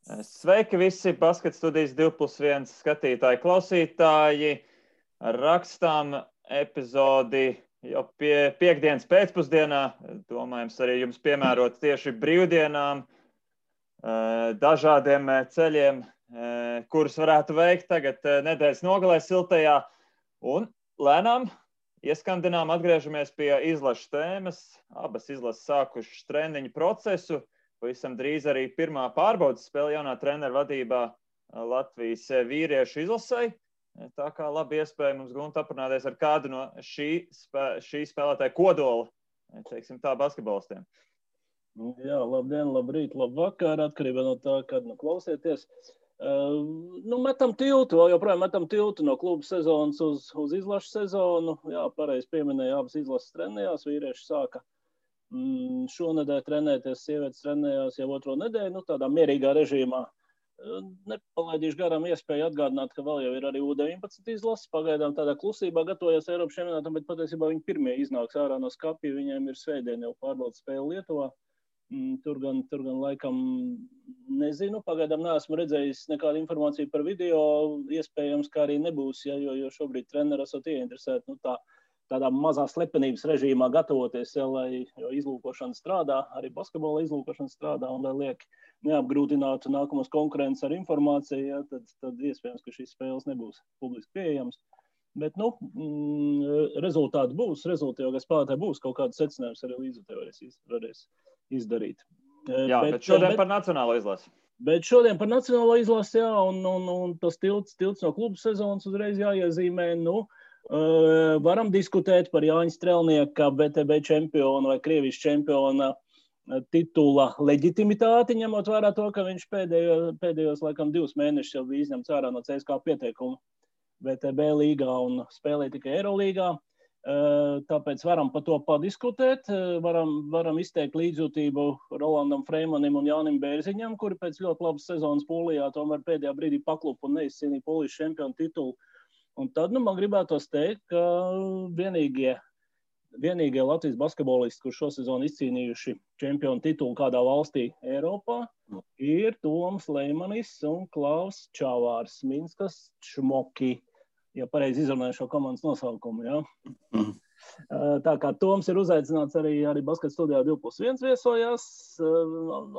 Sveiki visi Basket studijas 2+1 skatītāji, klausītāji. Rakstām epizodi jau piekdienas pēcpusdienā. Domājams, arī jums piemērot tieši brīvdienām, dažādiem ceļiem, kurus varētu veikt tagad nedēļas nogalē siltajā. Un lēnām ieskandinām atgriežamies pie izlašu tēmas. Abas izlases sākušas treniņu procesu. Pavisam drīz arī pirmā pārbaudas spēle jaunā treneru vadībā Latvijas vīriešu izlasei. Tā kā labi iespēja mums Gunta aprunāties ar kādu no šī spēlētāja kodola, teiksim tā, basketbolistiem. Jā, labdien, labrīt, labvakar, atkarībā no tā, kad klausieties. Metam tiltu, vēl joprojām metam tiltu no kluba sezonas uz izlašu sezonu. Jā, pareizi pieminēja, abas izlases trenējās, vīrieši sāka šonedēļ trenēties, sievietes trenējās jau otro nedēļu, tādā mierīgā režīmā. Nepalaidīšu garām iespēju atgādināt, ka vēl jau ir arī U19 izlases. Pagaidām tādā klusībā gatavojas Eiropas čempionātam, bet patiesībā viņi pirmie iznāks ārā no skapja. Viņiem ir svētdien jau pārbaudas spēle Lietuvā. Tur gan laikam nezinu. Pagaidām neesmu redzējis nekādu informāciju par video. Iespējams, ka arī nebūs, jo šobrīd treneri esat ieinteresēti tādā mazā slepenības režīmā gatavoties, jo izlūkošana strādā, arī basketbola izlūkošana strādā, un lai liek neapgrūtinātu nākamos konkurences ar informāciju, tad iespējams, ka šīs spēles nebūs publiski pieejams. Bet, rezultāti būs, jo spēlētāji būs kaut kāds secinājums arī līdzutē varēs izdarīt. Jā, bet šodien par nacionālo izlasi. Bet šodien par nacionālo izlasi, jā, un tas tilts no klubu sezonas uzreiz jāiezīmē, varam diskutēt par Jāņa Strelnieka BTB čempionu vai Krievijas čempiona titula leģitimitāti, ņemot vērā to, ka viņš pēdējos laikam 2 mēnešus jau bija izņemts ārā no CSKA pieteikuma BTB līgā un spēlēja tikai Eirolīgā. Tāpēc varam par to padiskutēt, varam izteikt līdzjūtību Rolandam Freimanim un Jānim Bērziņam, kuri pēc ļoti labas sezonas Polijā tomēr pēdējā brīdī paklupa un neizcīnīja Polijas čempionu titulu. Un tad man gribētos teikt, ka vienīgie Latvijas basketbolisti, kur šo sezonu izcīnījuši čempionu titulu kādā valstī Eiropā, ir Toms Leimanis un Klaus Čavārs, Minskas Šmoki, ja pareizi izrunāju šo komandas nosaukumu. Ja? Tā kā Toms ir uzaicināts arī Basket studijā 2+1 viesojās,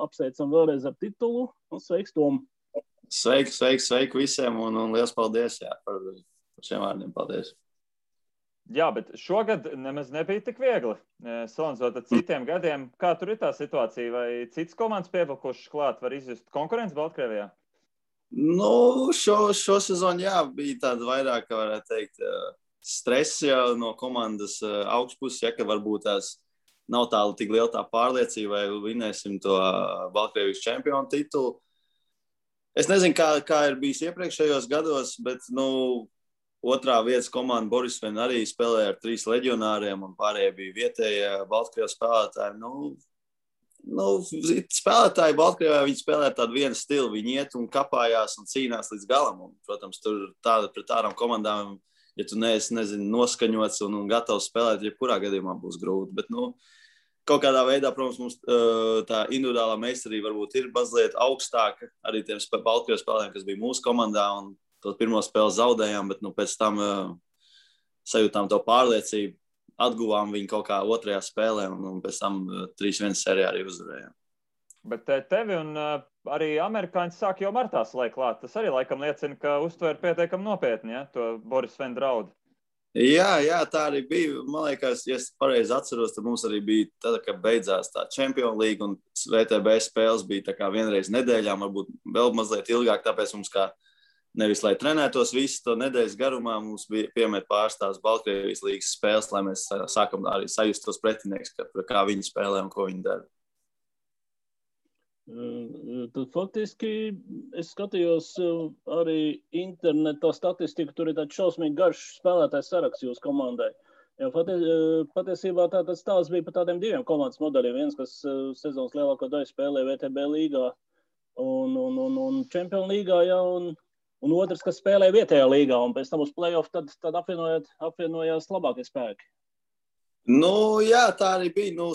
apsveicam vēlreiz ar titulu, un sveiks, Tom! Sveiki visiem, un liels paldies par šiem vārdiem. Paldies. Jā, bet šogad nemaz nebija tik viegli. Salīdzinot ar citiem gadiem, kā tur ir tā situācija? Vai citas komandas pievilkušas klāt, var izjust konkurenci Baltkrievijā? Šo sezonu, jā, bija tāda vairāk, kā varētu teikt, stress jau no komandas augšpuses, ka varbūt tās nav tik liela tā pārliecība, vai vinēsim to Baltkrievijas čempionu titulu. Es nezinu, kā ir bijis iepriekšējos gados, bet, otrā vietas komanda Borisvena arī spēlēja ar 3 leģionāriem, un pārējie bija vietējie Baltkrievas spēlētāji. Spēlētāji Baltkrievā, viņi spēlē tādu vienu stilu, viņi iet un kapājās un cīnās līdz galam. Un, protams, tur pret tādām komandām, ja tu neesi, noskaņots un gatavs spēlēt, jebkurā gadījumā būs grūti. Bet, kaut kādā veidā, protams, mums tā individuālā meistarība varbūt ir mazliet augstāka arī tiem Baltkrievas spēlētājiem, kas bija mūsu komandā, un to pirmo spēli zaudējām, bet pēc tam sajūtām to pārliecību, atguvām viņu kaut kā otrajā spēlē, un pēc tam 3-1 sērijā arī uzvarējām. Bet tevi un arī amerikāņi sāk jau martā slēgt klāt. Tas arī laikam liecina, ka uztver pietiekami nopietni, ja, to Borisvena draudu. Jā, tā arī bija. Man liekas, ja es pareizi atceros, tad mums arī bija tad, kad beidzās tā Champions League un VTB spēles bija tā kā vienreiz nedēļā, varbūt vēl mazliet ilgāk, tāpēc mums kā nevis, lai trenētos visu to nedēļas garumā, mums bija piemet pārstāvs Baltkrievijas līgas spēles, lai mēs sākam arī sajust tos pretinieks, kā viņi spēlē un ko viņi dara. Tad faktiski es skatījos arī internetā statistiku, tur ir tāds šausmīgi garš spēlētājs saraksts jūsu komandai. Jo patiesībā tāds stāsts bija par tādiem 2 komandas modeļiem. Viens, kas sezonas lielāko daļu spēlē VTB līgā un Champions līgā, ja, un otrs, kas spēlē vietējā līgā, un pēc tam uz play-off tad apvienojās labākie spēki. Nu, jā, tā arī bija. Nu,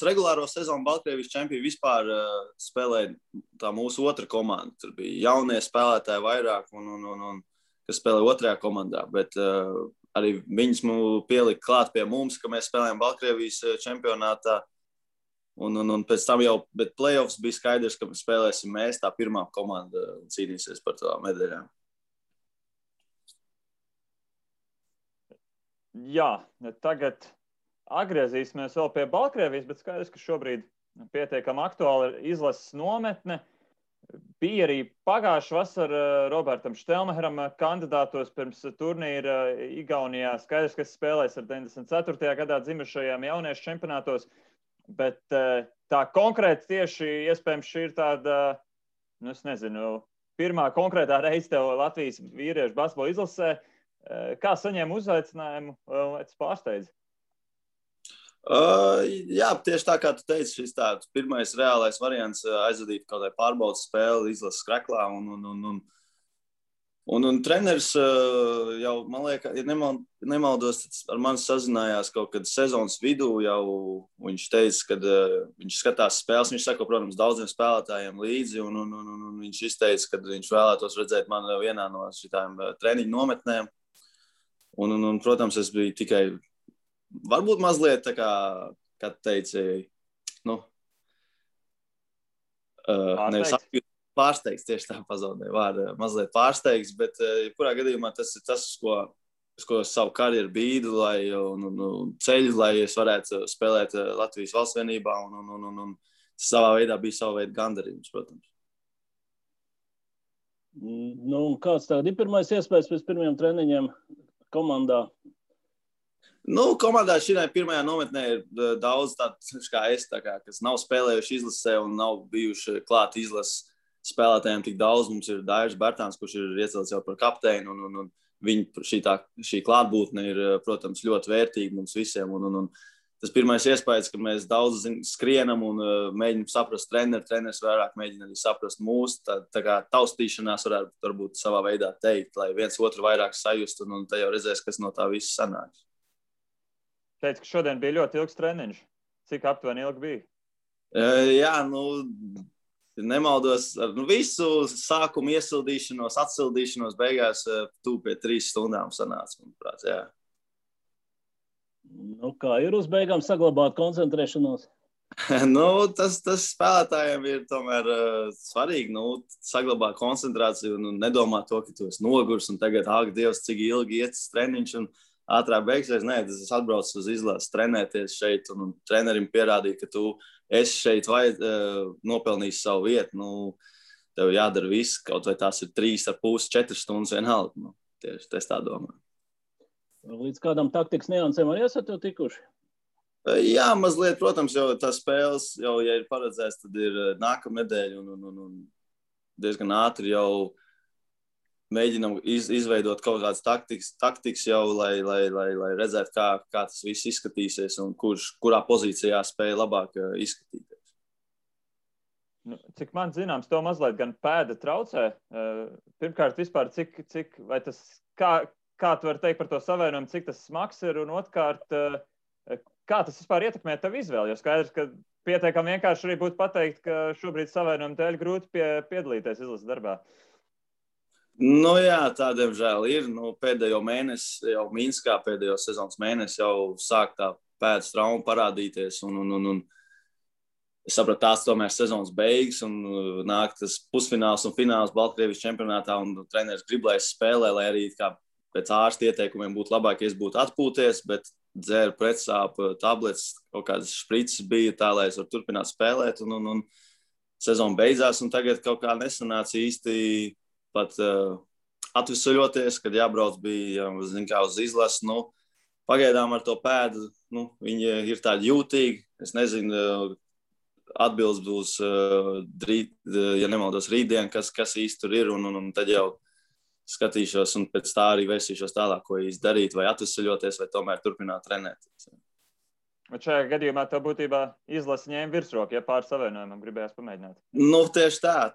regulāro sezonu Baltkrievijas čempioni vispār spēlēja tā mūsu otra komanda. Tur bija jaunie spēlētāji vairāk, un kas spēlē otrajā komandā. Bet arī viņus pielika klāt pie mums, ka mēs spēlējām Baltkrievijas čempionātā. Un pēc tam jau, bet playoffs bija skaidrs, ka spēlēsim mēs, tā pirmā komanda, un cīnīsies par tām medaļām. Jā, tagad atgriezīsimies vēl pie Baltkrievijas, bet skaidrs, ka šobrīd pietiekami aktuāli ir izlases nometne. Bija arī pagājušā vasara Robertam Štelmeheram kandidātos pirms turnīra Igaunijā. Skaidrs, ka spēlēs ar 94. gadā dzimušajiem jauniešu čempionātos, bet tā konkrēti tieši iespējams šī ir tāda, nu es nezinu, pirmā konkrētā reize tev Latvijas vīriešu basketbola izlasē. Kā saņēma uzaicinājumu, vai tas pārsteidz? Jā, tieši tā kā tu teici, šis tāds pirmais reālais variants aizvadīt kaut kādu pārbaudas spēli izlases skreklā. Un treneris jau, man liekas, ja nemaldos, ar mani sazinājās kaut kad sezonas vidū jau. Viņš teica, kad viņš skatās spēles, viņš sako, protams, daudziem spēlētājiem līdzi, un viņš izteica, ka viņš vēlētos redzēt mani vienā no šitām treniņu nometnēm. Un, protams, es biju tikai, varbūt mazliet tā kā teici, nu, pārsteigts, tieši tā pazaudēja vārdu, mazliet pārsteigts, bet kurā gadījumā tas ir tas, uz ko savu karjeru bīdu, un ceļu, lai es varētu spēlēt Latvijas valsts vienībā, un savā veidā bija sava veida gandarījums, protams. Nu, kāds tagad ir pirmais iespējas pēc pirmiem treniņiem komandā? Nu, komandā šī pirmajā nometnē ir daudz tādu, kā es, kas nav spēlējuši izlasē un nav bijuši klāt izlases spēlētājiem tik daudz. Mums ir Dairis Bertāns, kurš ir iecelts jau par kapteini, un viņa šī klātbūtne ir, protams, ļoti vērtīga mums visiem. Un tas pirmais iespējas, ka mēs daudz skrienam un mēģinam saprast treneris vairāk mēģina arī saprast mūs. Tā kā taustīšanās varbūt savā veidā teikt, lai viens otru vairāk sajust, un te jau redzēs, kas no tā viss sanāks. Teicu, ka šodien bija ļoti ilgs treniņš. Cik aptuveni ilgi bija? Jā, nemaldos ar visu sākumu iesildīšanos, atsildīšanos, beigās tuvu pie 3 stundām sanāca, manuprāt, jā. Nu, kā ir uz beigām saglabāt koncentrēšanos? Tas spēlētājiem ir tomēr svarīgi, saglabāt koncentrāciju un nedomāt to, ka tu esi nogurs un tagad, Dievs, cik ilgi iet treniņš un ātrāk beigsies. Nē, es atbraucu uz izlases trenēties šeit un trenerim pierādīja, ka tu esi šeit nopelnījis savu vietu. Tev jādara viss, kaut vai tās ir 3,5–4 stundas vienalga. Tieši es tā domāju. Līdz kādam taktikas niansēm arī esat jau tikuši? Jā, mazliet, protams, jau tās spēles, jau, ja ir paredzēts, tad ir nākamnedēļ un diezgan ātri jau mēģinam izveidot kaut kādas taktikas jau, lai redzētu, kā tas viss izskatīsies un kurā pozīcijā spēja labāk izskatīties. Cik man zināms, to mazliet gan pēda traucē. Pirmkārt, vispār, vai tas, kā tu vari teikt par to savienojumu, cik tas smags ir, un otrkārt, kā tas vispār ietekmē tavu izvēli? Jo skaidrs, ka pietiekami vienkārši arī būtu pateikt, ka šobrīd savienojumu dēļ grūti piedalīties izlases darbā. Jā, tā diemžēl ir. Pēdējo mēnesi, jau Minskā pēdējo sezonas mēnesi jau sāk tā pēdas trauma parādīties. Un es sapratu, tās tomēr sezonas beigas un nāk tas pusfināls un fināls Baltkrievijas čempionātā un treneris grib, lai es spēlē, lai arī kā pēc ārsta ieteikumiem būtu labāk, ja es būtu atpūties, bet dzēru pretsāpu tablets, kaut kādas šprices bija tā, lai es varu turpināt spēlēt. Un sezona beidzās un tagad kaut kā nesanāca īsti pat atvesaļoties, kad jābrauc bija, uz izlasi. Pagaidām ar to pēdu, viņi ir tādi jūtīgi. Es nezinu, atbildes būs, ja nemaldos, rītdien, kas īsti tur ir, un tad jau skatīšos un pēc tā arī vērsīšos tālāk, ko īsti darīt, vai atvesaļoties, vai tomēr turpināt trenēties. Bet šajā gadījumā tev būtībā izlase ņēma virsroku, ja pār savienojumam gribējās pamēģināt? Tieši tā.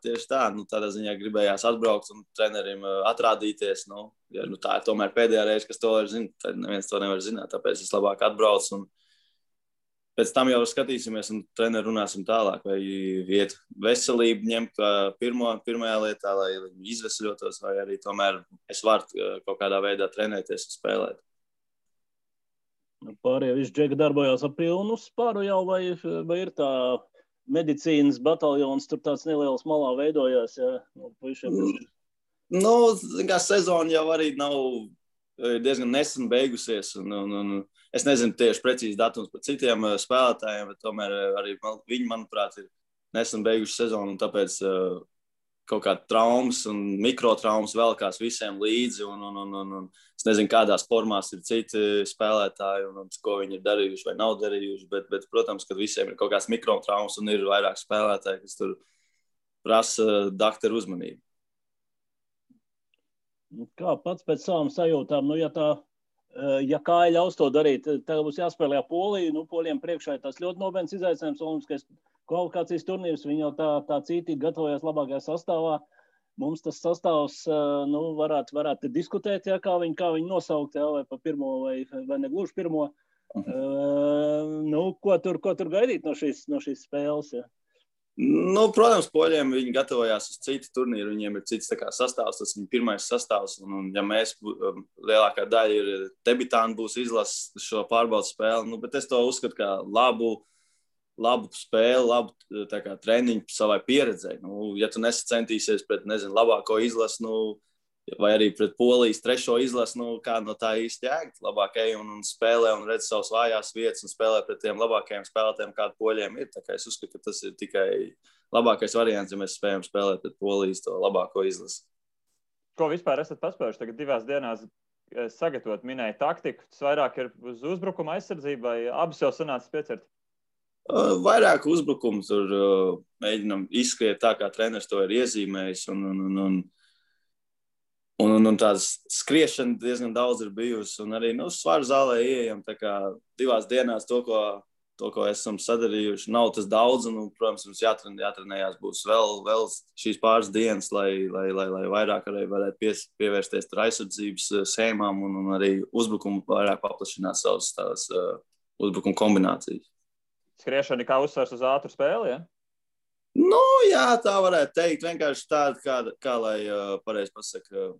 Tādā ziņā gribējās atbraukt un trenerim atrādīties. Tā ir tomēr pēdējā reize, kas to var zināt. Tad neviens to nevar zināt, tāpēc es labāk atbraucu un pēc tam jau skatīsimies un treneri runāsim tālāk, vai iet veselību ņemt pirmajā lietā, lai viņi izvesaļotos, vai arī tomēr es varu kaut kādā veidā trenēties un spēlēt. Pārējie visi džeki darbojās ar pilnu spāru jau, vai ir tā medicīnas bataljons, tur tāds neliels malā veidojās, ja? Kā sezona jau arī nav diezgan nesen beigusies, un es nezinu tieši precīzi datums par citiem spēlētājiem, bet tomēr arī viņi, manuprāt, ir nesen beiguši sezonu, un tāpēc kaut kāda traumas un mikrotraumas velkās visiem līdzi, un es nezinu, kādās formās ir citi spēlētāji, un ko viņi ir darījuši vai nav darījuši, bet protams, ka visiem ir kaut kāds mikrotraumas, un ir vairāk spēlētāji, kas tur prasa dakteru uzmanību. Kā pats pēc savām sajūtām, ja kāja ļaus to darīt, tagad būs jāspēlē Poliju, Polijiem priekšā ir tas ļoti nopietns izaicinājums, olimpiskais kvalifikācijas turnīrs, viņi jau tā cītīgi gatavojas labākajā sastāvā. Mums tas sastāvs, varētu diskutēt, kā viņi nosaukt, vai pa pirmo, vai negluži pirmo. Ko tur gaidīt no šīs spēles, ja? Protams, poļiem viņi gatavojās uz citu turnīru, viņiem ir cits sastāvs, tas viņa pirmais sastāvs, un ja mēs lielākā daļa ir debitāni būs izlases šo pārbaudas spēli, bet es to uzskatu kā labu spēli, labu treniņu savai pieredzei. Ja tu nesacentīsies pret, labāko izlasi, vai arī pret Polijas trešo izlasi, kā no tā īsti jēgt, labāk ej un spēlē un redz savas vājās vietas un spēlē pret tiem labākajiem spēlētājiem, kādi poļiem ir. Tā kā es uzskatu, ka tas ir tikai labākais variants, ja mēs spējam spēlēt pret Polijas to labāko izlasi. Ko vispār esat paspējuši tagad 2 dienās sagatavot, minēja taktiku? Tas vairāk ir uz uzbrukuma aizsardzību vai abas jau sanācis piecert? Vairāk uzbrukumu tur mēģinam izskriet tā, kā treneris to ir iezīmējis, un tādas skriešana diezgan daudz ir bijusi, un arī svaru zālē ieejam, tā kā 2 dienās to, ko esam sadarījuši, nav tas daudz, un, protams, mums jātrenējās būs vēl šīs pāris dienas, lai vairāk arī varētu pievērsties tur aizsardzības sēmām, un arī uzbrukumu vairāk paplašināt savas uzbrukuma kombinācijas. Skriešana kā uzsvars uz ātru spēli, ja? Jā, tā varētu teikt. Vienkārši tāda, kā lai pareizi pasaka,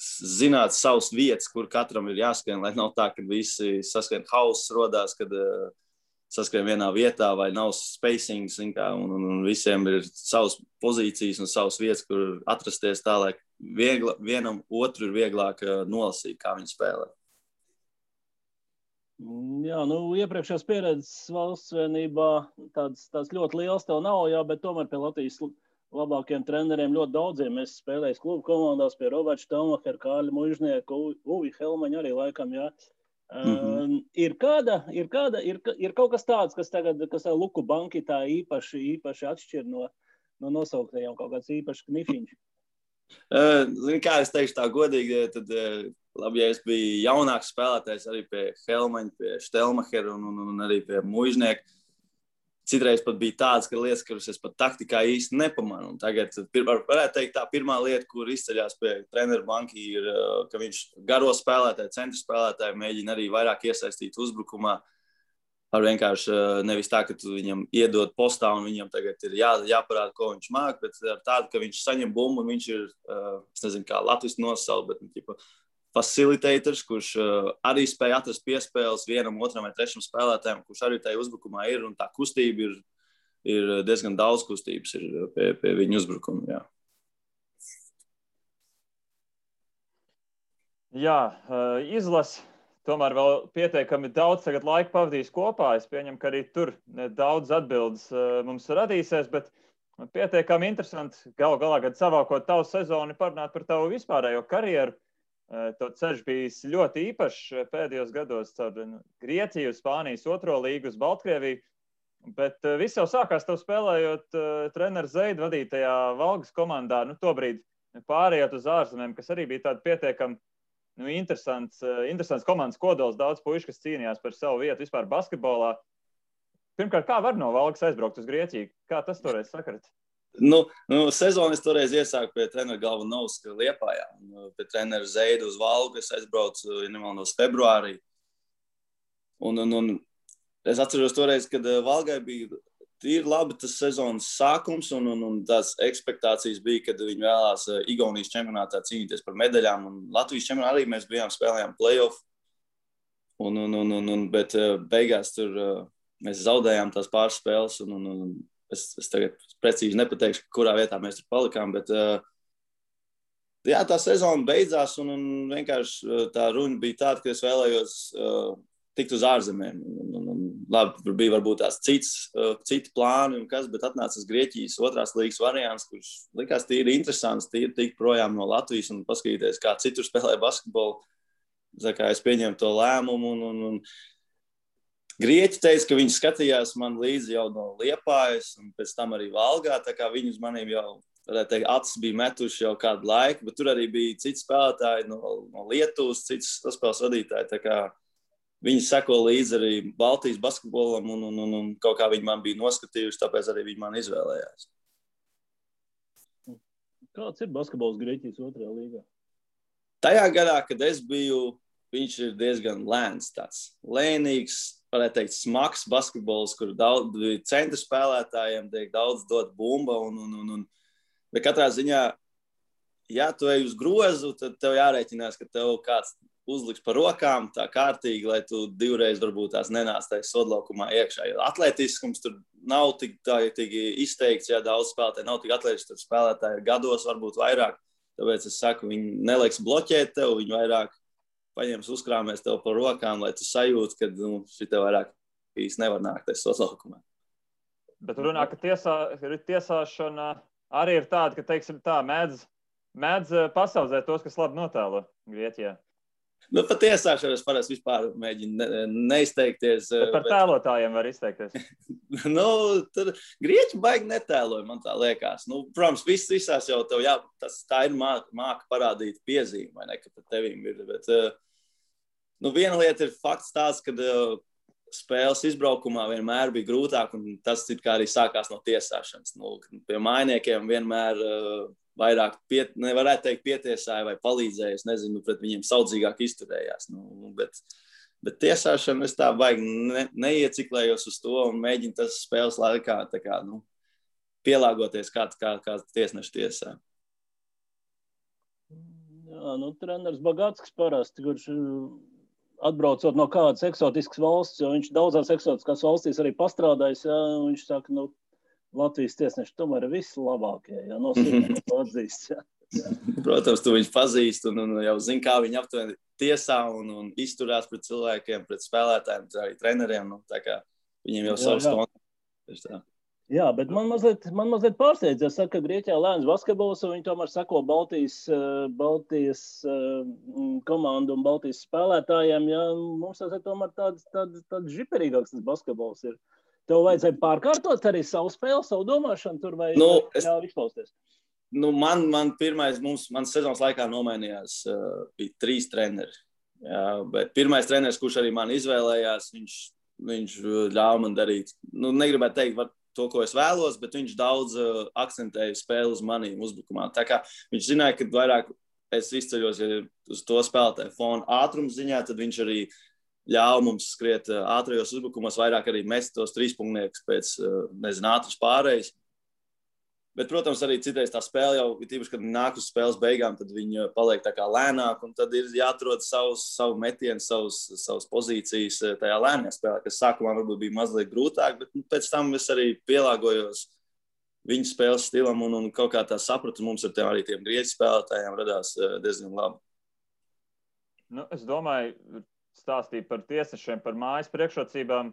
zināt savas vietas, kur katram ir jāskrien, lai nav tā, ka visi saskrien hauss rodās, kad saskrien vienā vietā vai nav spacings, un visiem ir savas pozīcijas un savas vietas, kur atrasties tā, lai vienam otru ir vieglāk nolasīt, kā viņi spēlē. Jā, iepriekšējās pieredzes valsts vienībā tāds ļoti liels tev nav, bet tomēr pie Latvijas labākiem treneriem ļoti daudziem. Mēs spēlējam klubu komandās pie Roberta Štelmachera, Kārļa Mužnieka, Uvi Helmaņa arī laikam, jā. Ir kaut kas tāds, kas Luku banki tā īpaši atšķir no nosauktajiem, kaut kāds īpašs knifiņš. Kā es teikšu tā godīgi, tad labi, ja es biju jaunāks spēlētājs arī pie Helmaņa, pie Štelmachera un arī pie Mužnieka. Citreiz pat bija tāds, ka lietas, kuras es pat taktikā īsti nepamanu. Un tagad varētu teikt tā pirmā lieta, kur izceļās pie treneru banki, ir, ka viņš garo spēlētāju, centru spēlētāju mēģina arī vairāk iesaistīt uzbrukumā. Ar vienkārši nevis tā, ka tu viņam iedod postā un viņam tagad ir jāparāda, ko viņš māk, bet ar tādu, ka viņš saņem bumbu un viņš ir, es nezinu, kā latviski nosaukt, bet facilitators, kurš arī spēja atrast piespēles vienam, otram vai trešam spēlētājiem, kurš arī tajā uzbrukumā ir, un tā kustība ir diezgan daudz kustības ir pie viņa uzbrukuma, jā. Jā, izlase. Tomēr vēl pietiekami daudz tagad laika pavadīs kopā. Es pieņemu, ka arī tur daudz atbildes mums radīsies, bet pietiekami interesanti galu galā, kad savākot tavu sezonu, parunāt par tavu vispārējo karjeru. To ceļš bijis ļoti īpašs pēdējos gados caur Grieķiju, Spānijas 2. līgu uz Baltkrieviju, bet viss jau sākās tev spēlējot treneru Zeidu vadītajā Valgas komandā, tobrīd pārējot uz ārzemēm, kas arī bija tāda pietiekami interesants komandas kodols, daudz puiši, kas cīnījās par savu vietu vispār basketbolā. Pirmkārt, kā var no Valgas aizbraukt uz Grieķiju? Kā tas toreiz sakarat? Sezonu es toreiz iesāku pie trenera Galvanovska Liepājā. Pie trenera Zeidu uz Valgu es aizbraucu, ja nemaldos, februārī. Un Es atceros toreiz, kad Valgai bija tīri labi tas sezonas sākums, un tās ekspektācijas bija, kad viņi vēlās Igaunijas čempionātā cīnīties par medaļām, un Latvijas čempionātā arī mēs spēlējām play-off, bet beigās tur mēs zaudējām tās pāris spēles, un es tagad precīzi nepateikšu, kurā vietā mēs tur palikām, bet jā, tā sezona beidzās, un vienkārši tā runa bija tāda, ka es vēlējos tikt uz ārzemēm. Labi, tur bija varbūt tās citi plāni, bet atnāca Grieķijas otrās līgas variants, kurš likās tīri interesants, tīri tikt projām no Latvijas un paskatīties, kā citur spēlē basketbolu. Kā es pieņēmu to lēmumu, un Grieķi teica, ka viņi skatījās man līdzi jau no Liepājas, un pēc tam arī Valgā, tā kā viņi uz maniem jau, varētu teikt, acis bija metuši jau kādu laiku, bet tur arī bija citi spēlētāji no Lietuvas, cits saspēles vadītāji, tā kā viņi seko līdzi arī Baltijas basketbolam, un kaut kā viņi man bija noskatījuši, tāpēc arī viņi man izvēlējās. Kāds ir basketbols Grieķijas otrajā līgā? Tajā gadā, kad es biju, viņš ir diezgan lēns tāds. Lēnīgs, varētu teikt, smags basketbols, kur daudz centra spēlētājiem tiek daudz dot bumba, bet katrā ziņā, ja tu ej uz grozu, tad tev jārēķinās, ka tev kāds uzliks par rokām tā kārtīgi, lai tu divreiz varbūt tās nenāc tajā sodlaukumā iekšā. Jo atletiskums tur nav tik izteikts, ja daudz spēlētāji nav tik atletiski, tur spēlētāji ir gados varbūt vairāk. Tāpēc es saku, viņi neliks bloķēt tev, viņi vairāk paņems uzkrāmēs tev par rokām, lai tu sajūti, ka šitā vairāk īsti nevar nākt tajā sodlaukumā. Bet runā, ka tiesāšana arī ir tāda, ka, teiksim tā, mēdz pasaudzēt tos, kas labi notēlo Grieķijā. Par tiesāšanu es parasti vispār mēģinu neizteikties. Bet par tēlotājiem var izteikties. Tad Grieķi baigi netēloja, man tā liekas. Protams, visās jau tev tā ir māka parādīt piezīmi, vai ne, ka par tevīm ir. Bet, viena lieta ir fakts tāds, ka spēles izbraukumā vienmēr bija grūtāk, un tas arī sākās no tiesāšanas. Pie mainiekiem vienmēr vairāk, nevarētu teikt, pietiesāja vai palīdzēja, es nezinu, pret viņiem saudzīgāk izturējās. Bet tiesāšana es tā baigi neieciklējos uz to un mēģinu tas spēles laikā pielāgoties, kā tiesneši tiesā. Jā, treneris Bagātskis parasti, kurš atbraucot no kādas eksotiskas valsts, jo viņš daudzās eksotiskās valstīs arī pastrādājis, jā, viņš saka, Latvijas tiesneši tomēr ir vislabākie, ja nosūtīt to atzīst. Jā. Protams, tu viņus pazīst un jau zini, kā viņi aptuveni tiesā un izturās pret cilvēkiem, pret spēlētājiem, arī treneriem. Tā kā viņiem jau savs kontakts. Jā, bet man mazliet pārsteidz, ja saka, ka Grieķijā lēns basketbols, un viņi tomēr seko Baltijas komandu un Baltijas spēlētājiem. Ja, mums tas ir tomēr tāds žiperīgāks tas basketbols ir. Tev vajadzēja pārkārtot arī savu spēli, savu domāšanu tur vai ļauj izpausties? Man pirmais, man sezonas laikā nomainījās, bija 3 treneri. Jā, bet pirmais treneris, kurš arī man izvēlējās, viņš ļāva man darīt, negribētu teikt to, ko es vēlos, bet viņš daudz akcentēja spēli uz manīm uzbrukumā. Tā kā viņš zināja, ka vairāk es izceļos uz to spēlētāju fonu ātrums ziņā, tad viņš arī ļauj mums skriet ātrajos uzbrukumos, vairāk arī mest tos 3-punktniekus pēc, ātras pārējas. Bet, protams, arī citreiz tā spēle jau, tīpaši, kad nāk uz spēles beigām, tad viņi paliek tā kā lēnāk, un tad ir jāatrod savu metienu, savas pozīcijas tajā lēnajā spēlē, kas sākumā varbūt bija mazliet grūtāk, bet pēc tam es arī pielāgojos viņu spēles stilam, un kaut kā tā sapratu mums ar arī tiem grieķu spēlētājiem radās diezgan labi. Es domāju, stāstīja par tiesnešiem, par mājas priekšrocībām.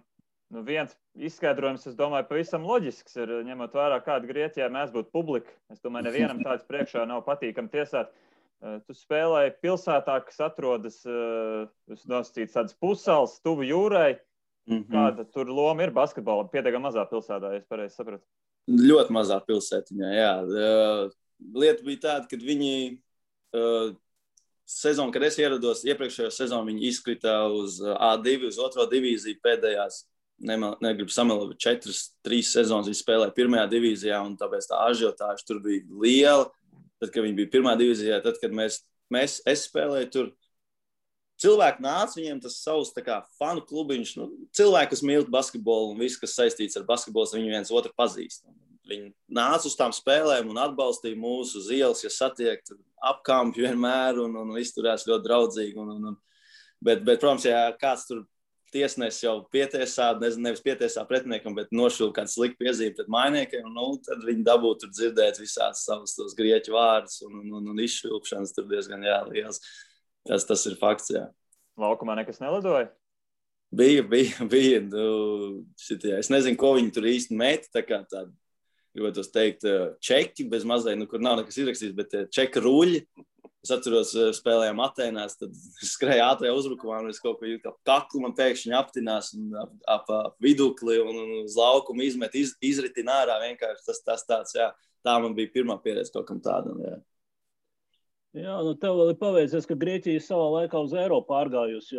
Viens izskaidrojums, es domāju, pavisam loģisks ir, ņemot vērā, kāda Grieķijā mēs būtu publika. Es domāju, nevienam tāds priekšā nav patīkam tiesāt. Tu spēlēji pilsētā, kas atrodas, nosacīts tādas pussalas, tuvu jūrai. Kāda tur loma ir basketbolam? Pietiekami mazā pilsētā, ja es pareizi sapratu. Ļoti mazā pilsētiņā, jā. Lieta bija tāda, kad viņi sezonu, kad es ierados, iepriekšējo sezonu viņi izkrita uz A2, uz 2. divīziju pēdējās, negribu samelot, 4-3 sezonas viņi spēlēja 1. divīzijā, un tāpēc tā ažiotāža tur bija liela. Tad, kad viņi bija 1. divīzijā, tad, kad es spēlēju tur, cilvēki nāca, viņiem tas savs tā kā fanu klubiņš, cilvēki, kas mīl basketbolu un viss, kas saistīts ar basketbolu, viņi viens otru pazīst. Viņi nāca uz tām spēlēm un atbalstīja mūsu uz ielas, ja satiek, apkampi vienmēr un izturās ļoti draudzīgi. Bet, protams, ja kāds tur tiesnesis jau pietiesā, nevis pietiesā pretiniekam, bet nošūl kāds slikti piezīme pret mainiekiem, tad viņi dabūtu tur dzirdēt visāds savus tos grieķu vārdus un izšvilpšanas tur diezgan liels. Tas ir fakts, jā. Laukumā nekas nelidoja? Bija. Es nezinu, ko viņi tur īsti met, tā kā tāda, gribētu teikt, čeki, bez mazliet, kur nav nekas izrakstīts, bet čeka ruļi. Es atceros, spēlējām Atēnās, tad skrēja ātrajā uzbrukumā, un es kaut ko jūtu, ka kaklu man pēkšņi aptinās un ap vidukli un uz laukumu izmet, izritina ārā vienkārši. Tas tāds, jā. Tā man bija pirmā pieredze kaut kam tādam, jā. Jā, tev vēl ir paveicies, ka Grieķija savā laikā uz eiro pārgājusi,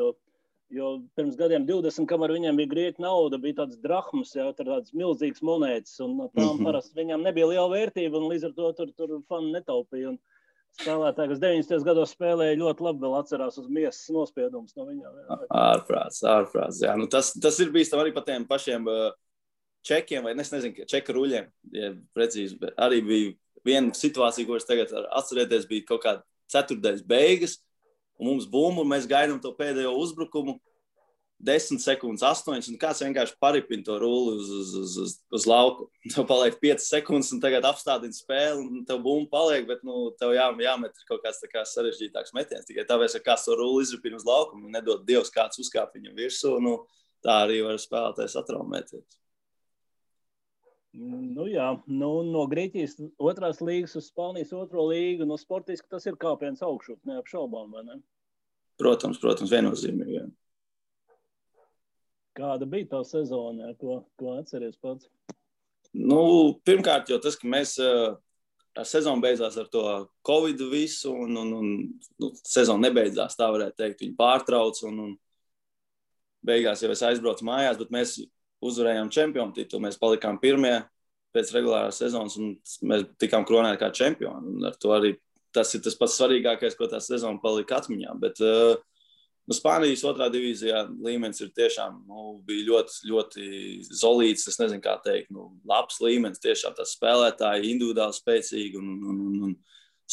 jo pirms gadiem 20, kamēr viņiem bija grieķu nauda, bija tāds drahmas, jā, tādas milzīgas monētas, un tām parasti viņām nebija liela vērtība, un līdz ar to tur fani netaupīja. Un spēlētāji, kas 90. gados spēlēja, ļoti labi vēl atcerās uz miesas nospiedumus no viņām. Ārprāts, jā. Tas ir bijis tam arī pa tiem pašiem čekiem, vai es nezinu, čeka ruļiem, ja precīzi, bet arī bija viena situācija, ko es tagad atcerēties, bija kaut kāda ceturtdaļas beigas, un mums bumbu, un mēs gaidām to pēdējo uzbrukumu, 10 sekundes, 8, un kāds vienkārši paripina to rulli uz lauku. Tev paliek 5 sekundes, un tagad apstādina spēli, un tev bumba paliek, bet tev jāmet kaut kāds tā kā sarežģītāks metiens. Tikai tāpēc, ka kāds to rulli izripina uz lauku, un nedod Dievs kāds uzkāp viņam virsū, tā arī var spēlētājs atraumēties. Jā, no Grieķijas 2. līgas uz Spānijas 2. līgu, sportiski tas ir kāpiens augšup, neapšaubām, vai ne? Protams, viennozīmīgi, jā. Kāda bija tā sezona, ko atceries pats? Pirmkārt, jau tas, ka mēs sezona beidzās ar to Covid visu, un sezona nebeidzās, tā varētu teikt, viņi pārtrauc, un beigās jau es aizbraucu mājās, bet mēs uzvarējām čempionu titulu, mēs palikām pirmie pēc regulārās sezonas, un mēs tikām kronēti kā čempioni, un ar to arī tas ir tas pats svarīgākais, ko tā sezona palika atmiņā, bet Spānijas 2. divīzijā līmenis ir tiešām, bija ļoti, ļoti zolīts, es nezinu, kā teikt, labs līmenis, tiešām tas spēlētāji individuāli spēcīgi, un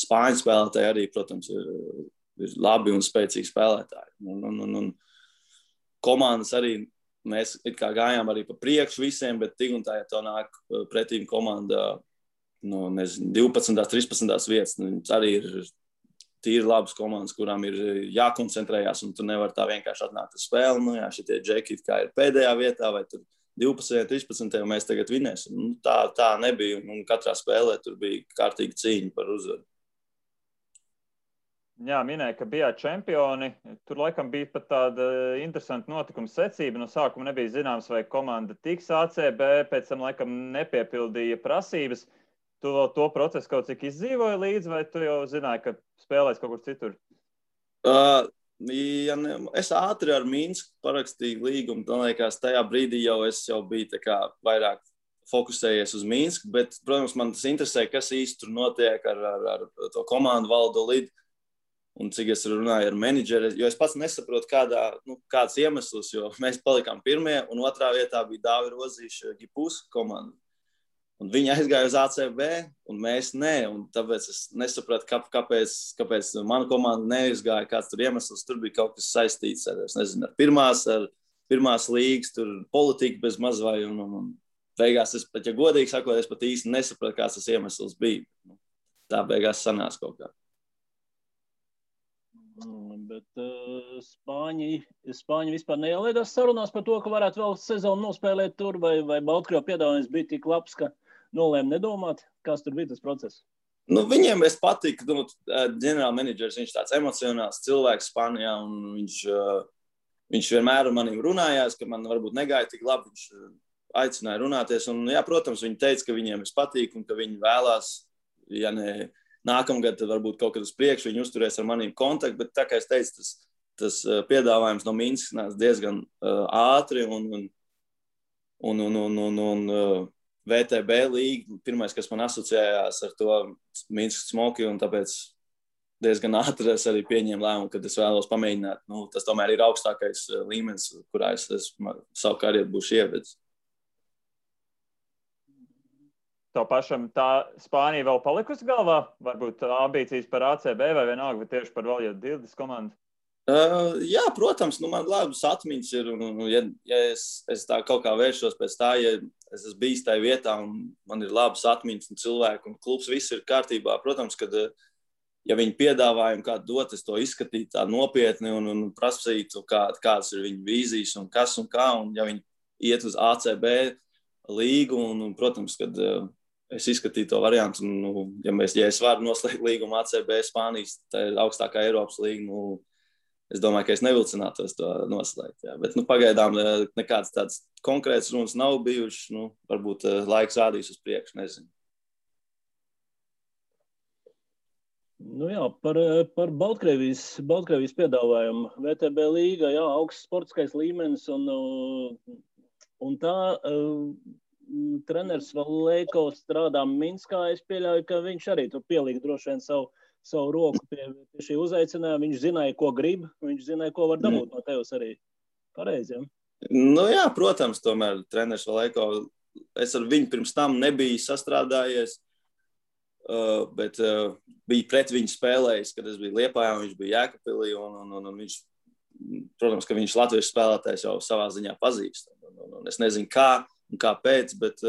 Spāņu spēlētāji arī, protams, ir labi un spēcīgi spēlētāji. Un komandas arī, mēs it kā gājām arī pa priekšu visiem, bet tik un tā, ja to nāk pretīm komanda, 12. 13. vietas, arī ir tīri labas komandas, kurām ir jākoncentrējās, un tu nevar tā vienkārši atnākt uz spēli. Šitie džeki kā ir pēdējā vietā, vai tur 12. 13. mēs tagad vinēsim. Tā nebija, un katrā spēlē tur bija kārtīga cīņa par uzvaru. Jā, minēja, ka bijāt čempioni. Tur laikam bija pat tāda interesanta notikuma secība. No sākuma nebija zināms, vai komanda tiks ACB, pēc tam laikam nepiepildīja prasības. Tu vēl to procesu kaut cik izdzīvoji līdzi, vai tu jau zināji, ka spēlēs kaut kur citur? Es ātri ar Minsku parakstīju līgumu. Man liekas, tajā brīdī es jau biju tā kā vairāk fokusējies uz Minsku, bet, protams, man tas interesē, kas īsti tur notiek ar to komandu Valdo Lidu un cik es runāju ar menedžeri, jo es pats nesaprotu kāds iemesls, jo mēs palikām pirmie, un 2. vietā bija Dāvi Rozīša Gipus komanda. Un viņi aizgāja uz ACB, un mēs ne. Un tāpēc es nesapratu, kāpēc mana komanda neizgāja, kāds tur iemesls. Tur bija kaut kas saistīts ar pirmās līgas, tur politika bez maz vai. Un beigās, ja godīgi sakot, es pat īsti nesapratu, kāds tas iemesls bija. Tā beigās sanās kaut kā. Bet Spāņi vispār neielaidās sarunās par to, ka varētu vēl sezonu nospēlēt tur, vai Baltkrievijas piedāvājums bija tik labs, ka nolēma nedomāt, kāds tur bija tas process? Viņiem es patiku, ģenerāla menedžers, viņš tāds emocionāls cilvēks Spānijā, un viņš vienmēr ar maniem runājās, ka man varbūt negāja tik labi, viņš aicināja runāties, un jā, protams, viņi teica, ka viņiem es patīku, un ka viņi vēlās, ja ne nākamgad, tad varbūt kaut kad uz priekšu viņi uzturēs ar maniem kontaktu, bet tā kā es teicu, tas piedāvājums no Minskas nāca diezgan ātri, un VTB līga, pirmais, kas man asociējās ar to Minskas Smoki, un tāpēc diezgan ātri es arī pieņēmu lēmumu, kad es vēlos pamēģināt. Nu, tas tomēr ir augstākais līmenis, kurā es savu karjeru būšu ievedis. Tev pašam tā Spānija vēl palikusi galvā? Varbūt ambīcijas par ACB vai vienalga, vai tieši par Valjo Dildes komandu? Jā, protams, man labas atmiņas ir, un ja es tā kaut kā vēršos pēc tā, ja es esmu bijis tajā vietā un man ir labas atmiņas un cilvēki un klubs, viss ir kārtībā. Protams, kad ja viņi piedāvājumu kādu dot, es to izskatītu tā nopietni un prasītu, kādas ir viņu vīzijas un kas un kā, un ja viņi iet uz ACB līgu, un protams, kad es izskatīju to variantu, un ja es varu noslēgt līgumu ACB Spānijas, tā ir augstākā Eiropas līga, es domāju, ka es nevilcinātos to noslēgt. Jā. Bet pagaidām nekāds tāds konkrēts runas nav bijušas. Varbūt laiks rādīs uz priekšu, nezinu. Jā, par Baltkrievijas piedāvājumu. VTB līga, jā, augsts sportiskais līmenis un tā treneris Valēko strādā Minskā. Es pieļauju, ka viņš arī tur pielika droši vien savu roku pie šī uzaicinājuma. Viņš zināja, ko grib, viņš zināja, ko var dabūt no tevis arī. Pareizi, ja? Jā, protams, tomēr treneris Valēko, es ar viņu pirms tam nebiju sastrādājies, bet bija pret viņu spēlējis, kad es biju Liepājā, viņš bija Jēkabpilī, un viņš, protams, ka viņš latviešu spēlētājs jau savā ziņā pazīst. Un es nezinu, kā un kāpēc, bet